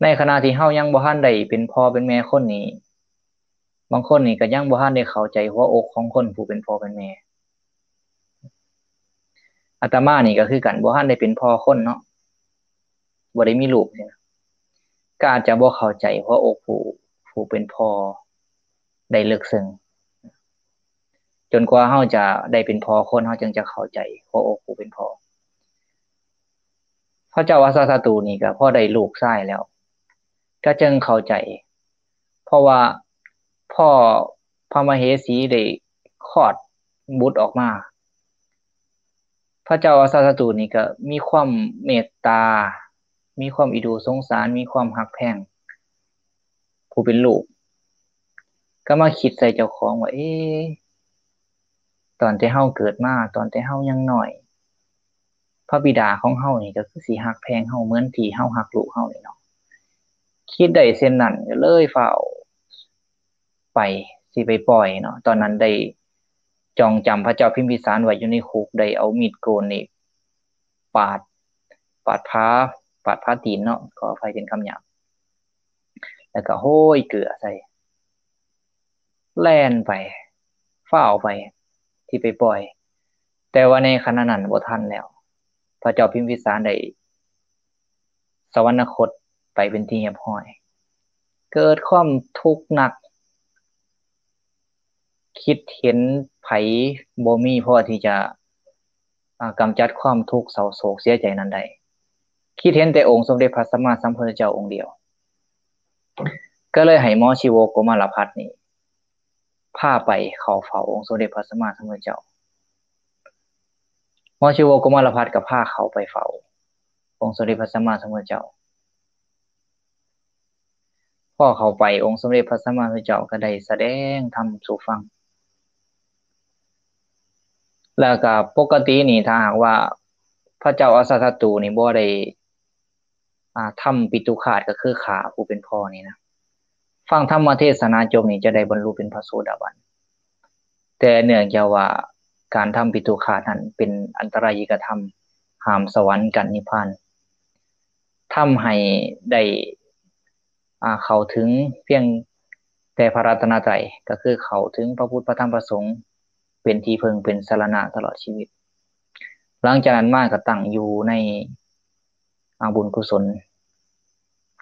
ໃນຂະນະທີ່ເຮົາຍັງບໍ່ທັນໄດ້ເປັນພໍ່ເປັນແມ່ຄົນນີ້ ບາງຄົນນີ້ກໍຍັງບໍ່ທັນໄດ້ເຂົ້າໃຈຫົວອົກຂອງຄົນຜູ້ເປັນພໍ່ເປັນແມ່. ອາດຕະມານີ້ກໍຄືກັນ ບໍ່ທັນໄດ້ເປັນພໍ່ຄົນເນາະ ບໍ່ໄດ້ມີລູກ ກໍອາດຈະບໍ່ເຂົ້າໃຈຫົວອົກຜູ້ ຜູ້ເປັນພໍ່ໄດ້ເລິກເຊິ່ງ. ຈົນກວ່າເຮົາຈະໄດ້ເປັນພໍ່ຄົນ ເຮົາຈຶ່ງຈະເຂົ້າໃຈຫົວອົກຜູ້ເປັນພໍ່. ພະເຈົ້າອາຊາດສັດຕູນີ້ກໍພໍໄດ້ລູກຊາຍແລ້ວ ກໍຈຶ່ງເຂົ້າໃຈ ເພາະວ່າພໍພະມະເຫສີໄດ້ຄອດບຸດອອກມາ ພະເຈົ້າອາຊາດສັດຕູນີ້ກໍມີຄວາມເມດຕາ ມີຄວາມອີດູສົງສານ ມີຄວາມຮັກແພງຜູ້ເປັນລູກ ກໍມາຄິດໃສ່ເຈົ້າຂອງວ່າ ເອ ຕອນແຕ່ເຮົາເກີດມາ ຕອນແຕ່ເຮົາຍັງນ້ອຍ ພະບິດາຂອງເຮົານີ້ກໍຄືຊິຮັກແພງເຮົາເໝືອນທີ່ເຮົາຮັກລູກເຮົານີ້ເນາະ. ຄິດໄດ້ເຊັ່ນນັ້ນກໍເລີຍຟ້າວໄປ ຊິໄປປ່ອຍເນາະ. ຕອນນັ້ນໄດ້ຈອງຈຳພະເຈົ້າພິມພິສານໄວ້ຢູ່ໃນຄຸກ ໄດ້ເອົາມີດໂກນນີ້ປາດ ປາດຜາ ປາດຜາຕີນເນາະ ຂໍອະໄພເປັນຄຳຫຍາບ ແລ້ວກໍໂຮຍເກືອໃສ່ ແລ່ນໄປ ຟ້າວໄປ ທີ່ໄປປ່ອຍ ແຕ່ວ່າໃນຂະນະນັ້ນບໍ່ທັນແລ້ວ ພະເຈົ້າພິມພິສານໄດ້ສະຫວັນນະຄົດໄປເປັນທີ່ຮຽບຮ້ອຍ. ເກີດຄວາມທຸກໜັກ ຄິດເຫັນໃຜບໍ່ມີພໍທີ່ຈະ ອາ ກຳຈັດຄວາມທຸກເສົ້າໂສກເສຍໃຈນັ້ນໄດ້ ຄິດເຫັນແຕ່ອົງສົມເດັດພະສຳມາສຳພຸດທະເຈົ້າອົງດຽວ ກໍເລີຍໃຫ້ໝໍຊີໂວໂກມາລະພັດນີ້ພາໄປເຂົ້າເຝົ້າອົງສົມເດັດພະສຳມາສຳພຸດທະເຈົ້າ. ໝໍຊີໂວໂກມາລະພັດກໍພາເຂົ້າໄປເຝົ້າອົງສົມເດັດພະສຳມາສຳພຸດທະເຈົ້າ. ພໍເຂົ້າໄປ ອົງສົມເດັດພະສຳມາສຳພຸດທະເຈົ້າກໍໄດ້ສະແດງທຳສູ່ຟັງ ແລ້ວກໍປົກກະຕິນີ້ ຖ້າຫາກວ່າພະເຈົ້າອາຊາດສັດຕູນີ້ບໍ່ໄດ້ ອາ ທຳປິຕຸຄາດ ກໍຄືຂ້າຜູ້ເປັນພໍ່ນີ້ນະ ຟັງທຳມະເທສະນາຈົບນີ້ ຈະໄດ້ບັນລຸເປັນພະໂສດາບັນ. ແຕ່ເນື່ອງຈາກວ່າການທຳປິຕຸຄາດນັ້ນເປັນອັນຕະລາຍິກະທຳ ຫ້າມສະຫວັນກັນນິບພານ ທຳໃຫ້ໄດ້ ອາ ເຂົ້າເຖິງພຽງແຕ່ພະລັດຕະນະໄຕ ກໍຄືເຂົ້າເຖິງພະພຸດ ພະທຳ ພະສົງ ເປັນທີ່ເພິ່ງ ເປັນສະລະນະຕະຫຼອດຊີວິດ. ຫຼັງຈາກນັ້ນມາກໍຕັ້ງຢູ່ໃນ ອາ ບຸນກຸສົນ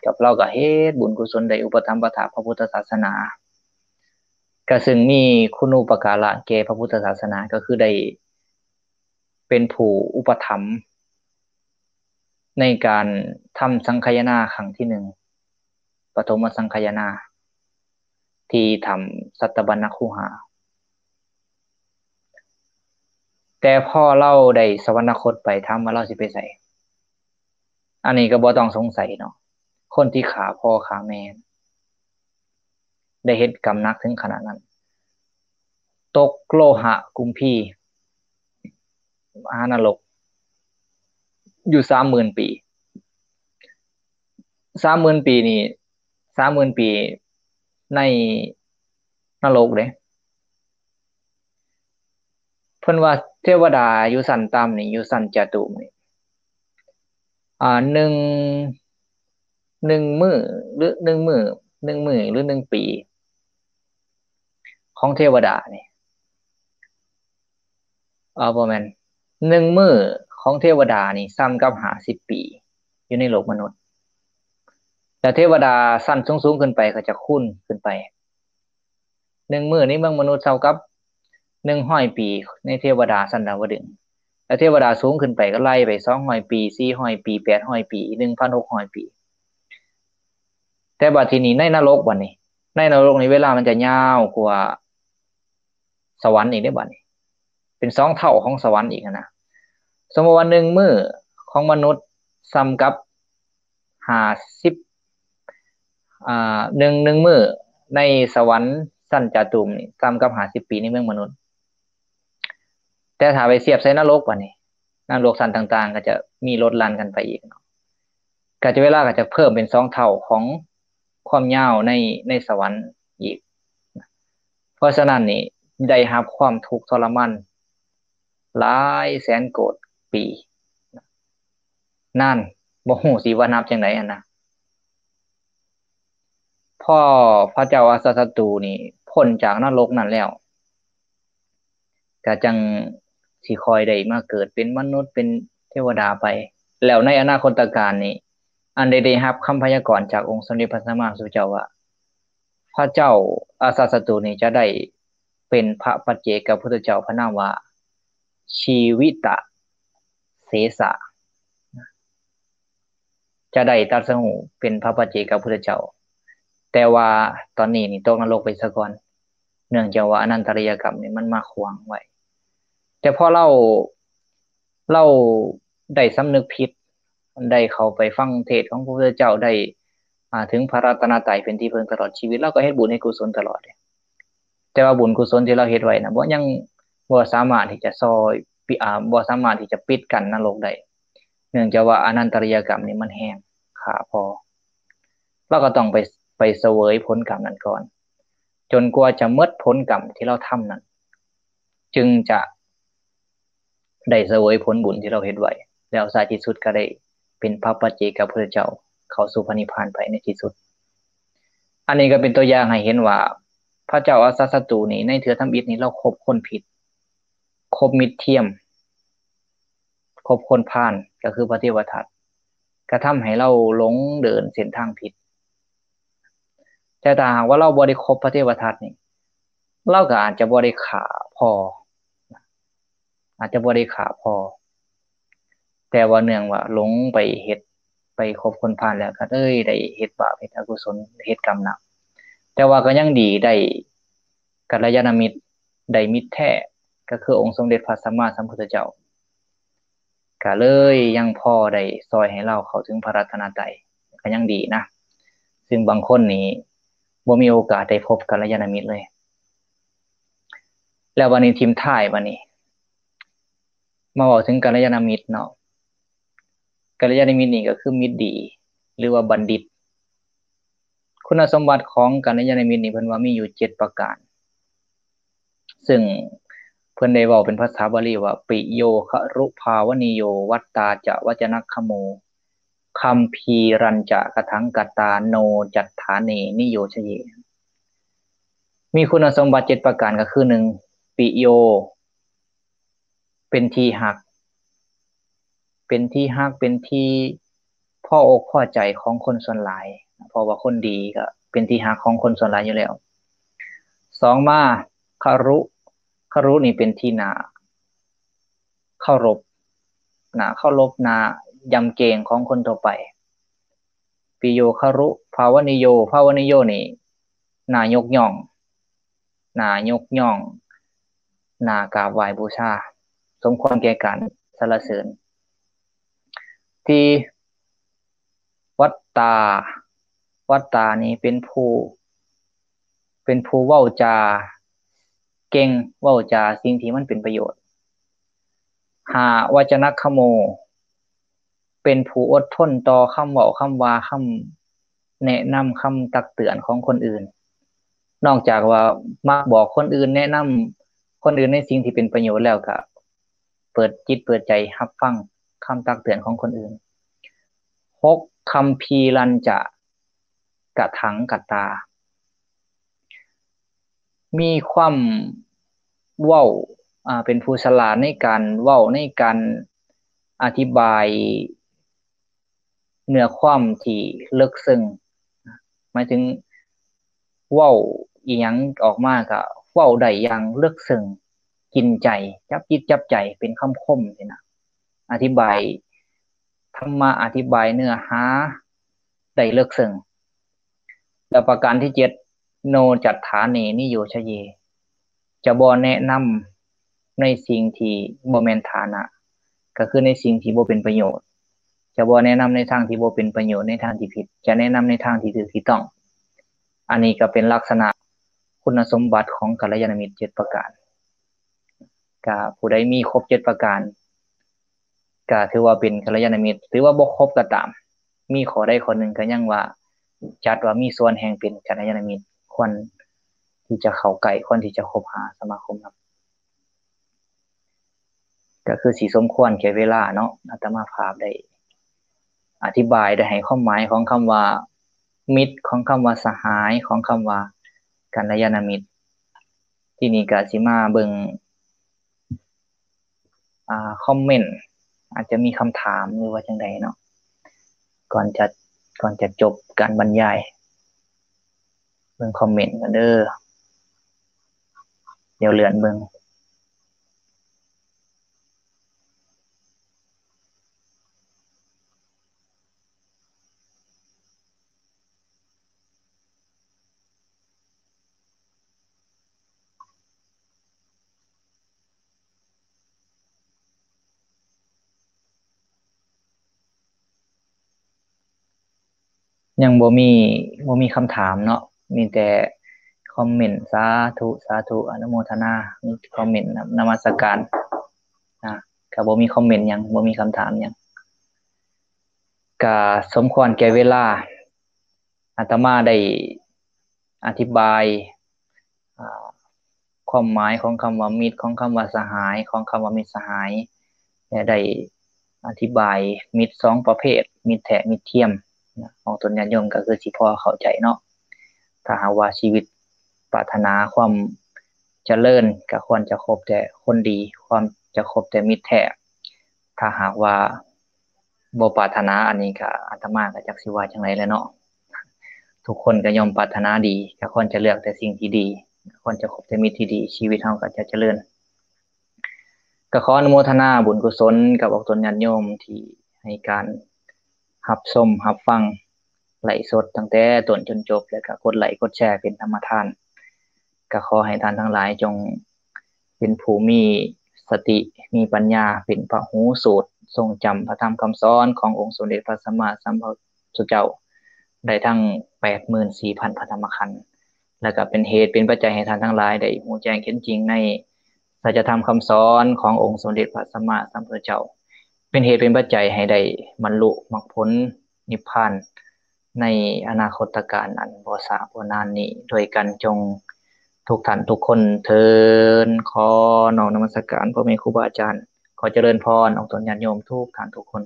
ກັບລາວກໍເຮັດບຸນກຸສົນໄດ້ອຸປະຖຳປະຖາກພະພຸດທະສາສະໜາ ກໍເຊິ່ງມີຄຸນູປະກາລະແກ່ພະພຸດທະສາສະໜາ ກໍຄືໄດ້ເປັນຜູ້ອຸປະຖຳໃນການທຳສັງຄະຍານາຄັ້ງທີໜຶ່ງ ປະຖົມມະສັງຄະຍານາ ທີ່ຖ້ຳສັດຕະບັນນະຄູຫາ. ແຕ່ພໍລາວໄດ້ສະຫວັນນະຄົດໄປ ຖາມວ່າລາວຊິໄປໃສ? ອັນນີ້ກໍບໍ່ຕ້ອງສົງໄສເນາະ ຄົນທີ່ຂ້າພໍ່ຂ້າແມ່ ໄດ້ເຮັດກຳໜັກເຖິງຂະໜາດນັ້ນ ຕົກໂລຫະກຸມພີ ມະຫານະລົກ ຢູ່ສາມໝື່ນປີ. ສາມໝື່ນປີນີ້ ສາມໝື່ນປີໃນນະລົກເດ້. ເພິ່ນວ່າເທວະດາຢູ່ຊັ້ນຕ່ຳນີ້ ຢູ່ຊັ້ນຈະຕຸມນີ້ ອ່າ ໜຶ່ງ ໜຶ່ງມື້ ຫຼື ໜຶ່ງມື້ ໜຶ່ງມື້ ຫຼື ໜຶ່ງປີຂອງເທວະດານີ້ ເອີ ບໍ່ແມ່ນ ໜຶ່ງມື້ຂອງເທວະດານີ້ສ່ຳກັບຫ້າສິບປີຢູ່ໃນໂລກມະນຸດ. ແລ້ວເທວະດາຊັ້ນສູງໆຂຶ້ນໄປກໍຈະຄູນຂຶ້ນໄປ. ໜຶ່ງມື້ໃນເມືອງມະນຸດເທົ່າກັບໜຶ່ງຮ້ອຍປີໃນເທວະດາຊັ້ນດາວະດຶງ. ແລ້ວເທວະດາສູງຂຶ້ນໄປກໍໄລ່ໄປສອງຮ້ອຍປີ ສີ່ຮ້ອຍປີ ແປດຮ້ອຍປີ ໜຶ່ງພັນຫົກຮ້ອຍປີ. ແຕ່ບັດທີນີ້ໃນນະລົກ ບັດນີ້ ໃນນະລົກນີ້ເວລາມັນຈະຍາວກວ່າ ສະຫວັນອີກເດ້ບັດນີ້ ເປັນສອງເທົ່າຂອງສະຫວັນອີກຫັ້ນນະ. ສົມມຸດວ່າໜຶ່ງມື້ຂອງມະນຸດສ່ຳກັບຫ້າສິບ ອ່າ ໜຶ່ງ ໜຶ່ງມື້ໃນສະຫວັນຊັ້ນຈາຕຸມນີ້ສ່ຳກັບຫ້າສິບປີໃນເມືອງມະນຸດ. ແຕ່ຖ້າໄປທຽບໃສ່ນະລົກບັດນີ້ ນະລົກຊັ້ນຕ່າງໆກໍຈະມີລົດຫຼັ່ນກັນໄປອີກເນາະ. ກະຈະເວລາກໍຈະເພີ່ມເປັນສອງເທົ່າຂອງຄວາມຍາວໃນ ໃນສະຫວັນອີກ. ເພາະສະນັ້ນນີ້ ໄດ້ຮັບຄວາມທຸກທໍລະມານຫຼາຍແສນໂກດປີ. ນັ້ນ ບໍ່ຮູ້ຊິວ່ານັບຈັ່ງໃດຫັ້ນນະ. ພໍພະເຈົ້າອາຊາດສັດຕູນີ້ພົ້ນຈາກນະລົກນັ້ນແລ້ວ ກະຈັ່ງຊິຄ່ອຍໄດ້ມາເກີດເປັນມະນຸດ ເປັນເທວະດາໄປ. ແລ້ວໃນອະນາຄົດຕະການນີ້ ອັນໄດ້ ໄດ້ຮັບຄຳພະຍາກອນຈາກອົງສົມເດັດພະສຳມາສຳພຸດທະເຈົ້າວ່າ ພະເຈົ້າອາຊາດສັດຕູນີ້ຈະໄດ້ເປັນພະປັດເຈກະພຸດທະເຈົ້າ ພະນາມວ່າ ຊີວິຕະເສສະ. ຈະໄດ້ຕັດສະຮູ້ເປັນພະປັດເຈກະພຸດທະເຈົ້າ, ແຕ່ວ່າຕອນນີ້ນີ້ຕົກນະລົກໄປຊະກ່ອນ, ເນື່ອງຈາກວ່າອະນັນຕະລິຍະກຳນີ້ມັນມາຂວາງໄວ້. ແຕ່ພໍລາວ ລາວໄດ້ສຳນຶກຜິດ, ໄດ້ເຂົ້າໄປຟັງເທດຂອງພະພຸດທະເຈົ້າ, ໄດ້ ອາ ເຖິງພະລັດຕະນະໄຕເປັນທີ່ເພິ່ງຕະຫຼອດຊີວິດ, ລາວກໍເຮັດບຸນເຮັດກຸສົນຕະຫຼອດເດ. ແຕ່ວ່າບຸນກຸສົນທີ່ລາວເຮັດໄວ້ນະ ບໍ່ ຍັງບໍ່ສາມາດທີ່ຈະຊ່ອຍ ປິ ອາ ບໍ່ສາມາດທີ່ຈະປິດກັ້ນນະລົກໄດ້, ເນື່ອງຈາກວ່າອະນັນຕະລິຍະກຳນີ້ມັນແຮງຂ້າພໍ. ລາວກໍຕ້ອງໄປ ໄປສະເຫວີຍຜົນກຳນັ້ນກ່ອນ, ຈົນກວ່າຈະໝົດຜົນກຳທີ່ລາວທຳນັ້ນ, ຈຶ່ງຈະ ໄດ້ສະເຫວີຍຜົນບຸນທີ່ລາວເຮັດໄວ້, ແລ້ວທ້າຍທີ່ສຸດກໍໄດ້ເປັນພະປັດເຈກະພຸດທະເຈົ້າ ເຂົ້າສູ່ພະນິບພານໄປໃນທີ່ສຸດ. ອັນນີ້ກໍເປັນຕົວຢ່າງໃຫ້ເຫັນວ່າ ພະເຈົ້າອາຊາດສັດຕູນີ້ ໃນເທື່ອທຳອິດນີ້ ລາວຄົບຄົນຜິດ, ຄົບມິດທຽມ, ຄົບຄົນພານ ກໍຄືພະເທວະທັດ, ກະທຳໃຫ້ລາວຫຼົງເດີນເສັ້ນທາງຜິດ. ແຕ່ຖ້າຫາກວ່າລາວບໍ່ໄດ້ຄົບພະເທວະທັດນີ້ ລາວກໍອາດຈະບໍ່ໄດ້ຂ້າພໍ່, ອາດຈະບໍ່ໄດ້ຂ້າພໍ່, ແຕ່ວ່າເນື່ອງວ່າຫຼົງໄປເຮັດ ໄປຄົບຄົນພານແລ້ວ ກໍເລີຍໄດ້ເຮັດບາບ ເຮັດອະກຸສົນ ເຮັດກຳໜັກ. ແຕ່ວ່າກໍຍັງດີໄດ້ກັນລະຍານະມິດ, ໄດ້ມິດແທ້ ກໍຄືອົງສົມເດັດພະສຳມາສຳພຸດທະເຈົ້າ. ກະເລີຍຍັງພໍໄດ້ຊ່ອຍໃຫ້ລາວເຂົ້າເຖິງພະລັດຕະນະໄຕ, ກະຍັງດີນະ, ຊຶ່ງບາງຄົນນີ້ບໍ່ມີໂອກາດໄດ້ພົບກັນລະຍານະມິດເລີຍ. ແລ້ວບັດນີ້ຖິ້ມທ້າຍບັດນີ້ ມາເວົ້າເຖິງກັນລະຍານະມິດເນາະ. ກັນລະຍານະມິດນີ້ກໍຄືມິດດີ ຫຼືວ່າບັນດິດ. ຄຸນນະສົມບັດຂອງກັນລະຍານະມິດນີ້ ເພິ່ນວ່າມີຢູ່ເຈັດປະການ, ຊຶ່ງເພິ່ນໄດ້ເວົ້າເປັນພາສາບາລີວ່າ ປິໂຍຄະລຸພາວະນິໂຍ ວັດຕາຈະວັດຈະນັກຂະໂມ ຄຳພີຣັນຈະກະຖັງກະຕາ ໂນຈັດຖາເນນິໂຍຊະເຍ. ມີຄຸນນະສົມບັດເຈັດປະການ ກໍຄື ໜຶ່ງ ປິໂຍ ເປັນທີ່ຮັກ, ເປັນທີ່ຮັກ ເປັນທີ່ພໍອົກພໍໃຈຂອງຄົນສ່ວນຫຼາຍ, ເພາະວ່າຄົນດີກໍເປັນທີ່ຮັກຂອງຄົນສ່ວນຫຼາຍຢູ່ແລ້ວ. ສອງມາ ຄະລຸ, ຄະລຸນີ້ເປັນທີ່ໜ້າເຄົາລົບ, ໜ້າເຄົາລົບ, ໜ້າຢຳເກງຂອງຄົນທົ່ວໄປ. ປິໂຍຄະລຸພາວະນິໂຍ, ພາວະນິໂຍນີ້ໜ້າຍົກຍ້ອງ, ໜ້າຍົກຍ້ອງ, ໜ້າກາບໄຫວ້ບູຊາ, ສົມຄວນແກ່ການສັນລະເສີນ. ທີ່ວັດຕາ, ວັດຕານີ້ເປັນຜູ້ ເປັນຜູ້ເວົ້າຈາເກັ່ງ, ເວົ້າຈາສິ່ງທີ່ມັນເປັນປະໂຫຍດ. ຫ້າ ວັດຈະນັກຂະໂມ, ເປັນຜູ້ອົດທົນຕໍ່ຄຳເວົ້າຄຳວ່າ ຄຳແນະນຳ ຄຳຕັກເຕືອນຂອງຄົນອື່ນ. ນອກຈາກວ່າມັກບອກຄົນອື່ນ ແນະນຳຄົນອື່ນໃນສິ່ງທີ່ເປັນປະໂຫຍດແລ້ວ ກໍເປີດຈິດເປີດໃຈຮັບຟັງຄຳຕັກເຕືອນຂອງຄົນອື່ນ. ຫົກ ຄຳພີລັນຈະ ກະຖັງກະຕາ ມີຄວາມເວົ້າ ອາ ເປັນຜູ້ສະຫຼາດໃນການເວົ້າ ໃນການອະທິບາຍເນື້ອຄວາມທີ່ເລິກເຊິ່ງ ໝາຍເຖິງເວົ້າອີ່ຫຍັງອອກມາກະເວົ້າໄດ້ຢ່າງເລິກເຊິ່ງ ກິນໃຈ ຈັບຈິດຈັບໃຈ ເປັນຄຳຄົມຊີ້ນະ ອະທິບາຍ ທຳມະ ອະທິບາຍເນື້ອຫາໄດ້ເລິກເຊິ່ງ. ແລ້ວປະການທີເຈັດ ໂນຈັດຖາເນນິໂຍຊະເຍ ຈະບໍ່ແນະນຳໃນສິ່ງທີ່ບໍ່ແມ່ນຖານະ ກໍຄືໃນສິ່ງທີ່ບໍ່ເປັນປະໂຫຍດ, ຈະບໍ່ແນະນຳໃນທາງທີ່ບໍ່ເປັນປະໂຫຍດ, ໃນທາງທີ່ຜິດ, ຈະແນະນຳໃນທາງທີ່ຖືກທີ່ຕ້ອງ. ອັນນີ້ກໍເປັນລັກສະນະຄຸນນະສົມບັດຂອງກັນລະຍານະມິດເຈັດປະການ. ກະຜູ້ໃດມີຄົບເຈັດປະການ ກະຖືວ່າເປັນກັນລະຍານະມິດ, ຖືວ່າບໍ່ຄົບກໍຕາມ, ມີຂໍ້ໃດຂໍ້ໜຶ່ງກໍຍັງວ່າ ຈັດວ່າມີສ່ວນແຫ່ງເປັນກັນລະຍານະມິດ, ຄວນທີ່ຈະເຂົ້າໃກ້, ຄວນທີ່ຈະຄົບຫາສະມາຄົມນຳ. ກໍຄືຊິສົມຄວນແກ່ເວລາເນາະ, ອາດຕະມາພາບໄດ້ອະທິບາຍ, ໄດ້ໃຫ້ຄວາມໝາຍຂອງຄຳວ່າມິດ, ຂອງຄຳວ່າສະຫາຍ, ຂອງຄຳວ່າກັນລະຍານະມິດ. ທີນີ້ກໍຊິມາເບິ່ງ ອ່າ ຄອມເມັນ ອາດຈະມີຄຳຖາມ ຫຼືວ່າຈັ່ງໃດເນາະ ກ່ອນຈະ ກ່ອນຈະຈົບການບັນຍາຍ. ເບິ່ງຄອມເມັນກ່ອນເດີ, ດຽວເລື່ອນເບິ່ງ. ຍັງບໍ່ມີ ບໍ່ມີຄຳຖາມເນາະ, ມີແຕ່ຄອມເມັນ. ສາທຸ ສາທຸ ອະນຸໂມທະນາ. ມີຄອມເມັນນຳ ນະມັດສະການ. ນະ ກໍບໍ່ມີຄອມເມັນຫຍັງ, ບໍ່ມີຄຳຖາມຫຍັງ. ກະສົມຄວນແກ່ເວລາ. ອາດຕະມາໄດ້ອະທິບາຍ ອາ ຄວາມໝາຍຂອງຄຳວ່າມິດ, ຂອງຄຳວ່າສະຫາຍ, ຂອງຄຳວ່າມິດສະຫາຍ ແລະ ໄດ້ອະທິບາຍມິດສອງປະເພດ, ມິດແທ້ ມິດທຽມ. ອອກຕົນຍາດໂຍມກໍຄືຊິພໍເຂົ້າໃຈເນາະ. ຖ້າຫາກວ່າຊີວິດປາດຖະໜາຄວາມຈະເລີນ ກໍຄວນຈະຄົບແຕ່ຄົນດີ, ຄວນຈະຄົບແຕ່ມິດແທ້. ຖ້າຫາກວ່າບໍ່ປາດຖະໜາອັນນີ້ ກະອາດຕະມາກະຈັກຊິວ່າຈັ່ງໃດແຫຼະເນາະ. ທຸກຄົນກະຍ່ອມປາດຖະໜາດີ, ກະຄວນຈະເລືອກແຕ່ສິ່ງທີ່ດີ, ຄວນຈະຄົບແຕ່ມິດທີ່ດີ, ຊີວິດເຮົາກະຈະຈະເລີນ. ກະຂໍອະນຸໂມທະນາບຸນກຸສົນກັບອອກຕົນຍາດໂຍມທີ່ໃຫ້ການຮັບຊົມຮັບຟັງ ໄລຟ໌ສົດຕັ້ງແຕ່ຕົ້ນຈົນຈົບ ແລະ ກໍກົດໄລຄ໌ກົດແຊເປັນທຳມະທານ. ກໍຂໍໃຫ້ທ່ານທັງຫຼາຍຈົ່ງເປັນຜູ້ມີສະຕິ ມີປັນຍາ ເປັນພະຫູສູດ ຊົງຈຳພະທຳຄຳສອນຂອງອົງສົມເດັດພະສຳມາສຳພຸດທະເຈົ້າ ໄດ້ທັງແປດໝື່ນສີ່ພັນພະທຳມະຂັນ ແລະ ກໍເປັນເຫດເປັນປັດໄຈໃຫ້ທ່ານທັງຫຼາຍໄດ້ຮູ້ແຈ້ງເຫັນຈິງໃນສັດຈະທຳຄຳສອນຂອງອົງສົມເດັດພະສຳມາສຳພຸດທະເຈົ້າ, ເປັນເຫດເປັນປັດໄຈໃຫ້ໄດ້ບັນລຸມັກຜົນ ນິບພານໃນອະນາຄົດຕະການອັນບໍ່ຊ້າບໍ່ນານນີ້ດ້ວຍກັນ ຈົ່ງທຸກທ່ານທຸກຄົນເທີ້ນ. ຂໍນ້ອມນະມັດສະການພໍ່ແມ່ຄູບາອາຈານ, ຂໍຈະເລີນພອນອອກຕົນຍາດໂຍມທຸກທ່ານທຸກຄົນ.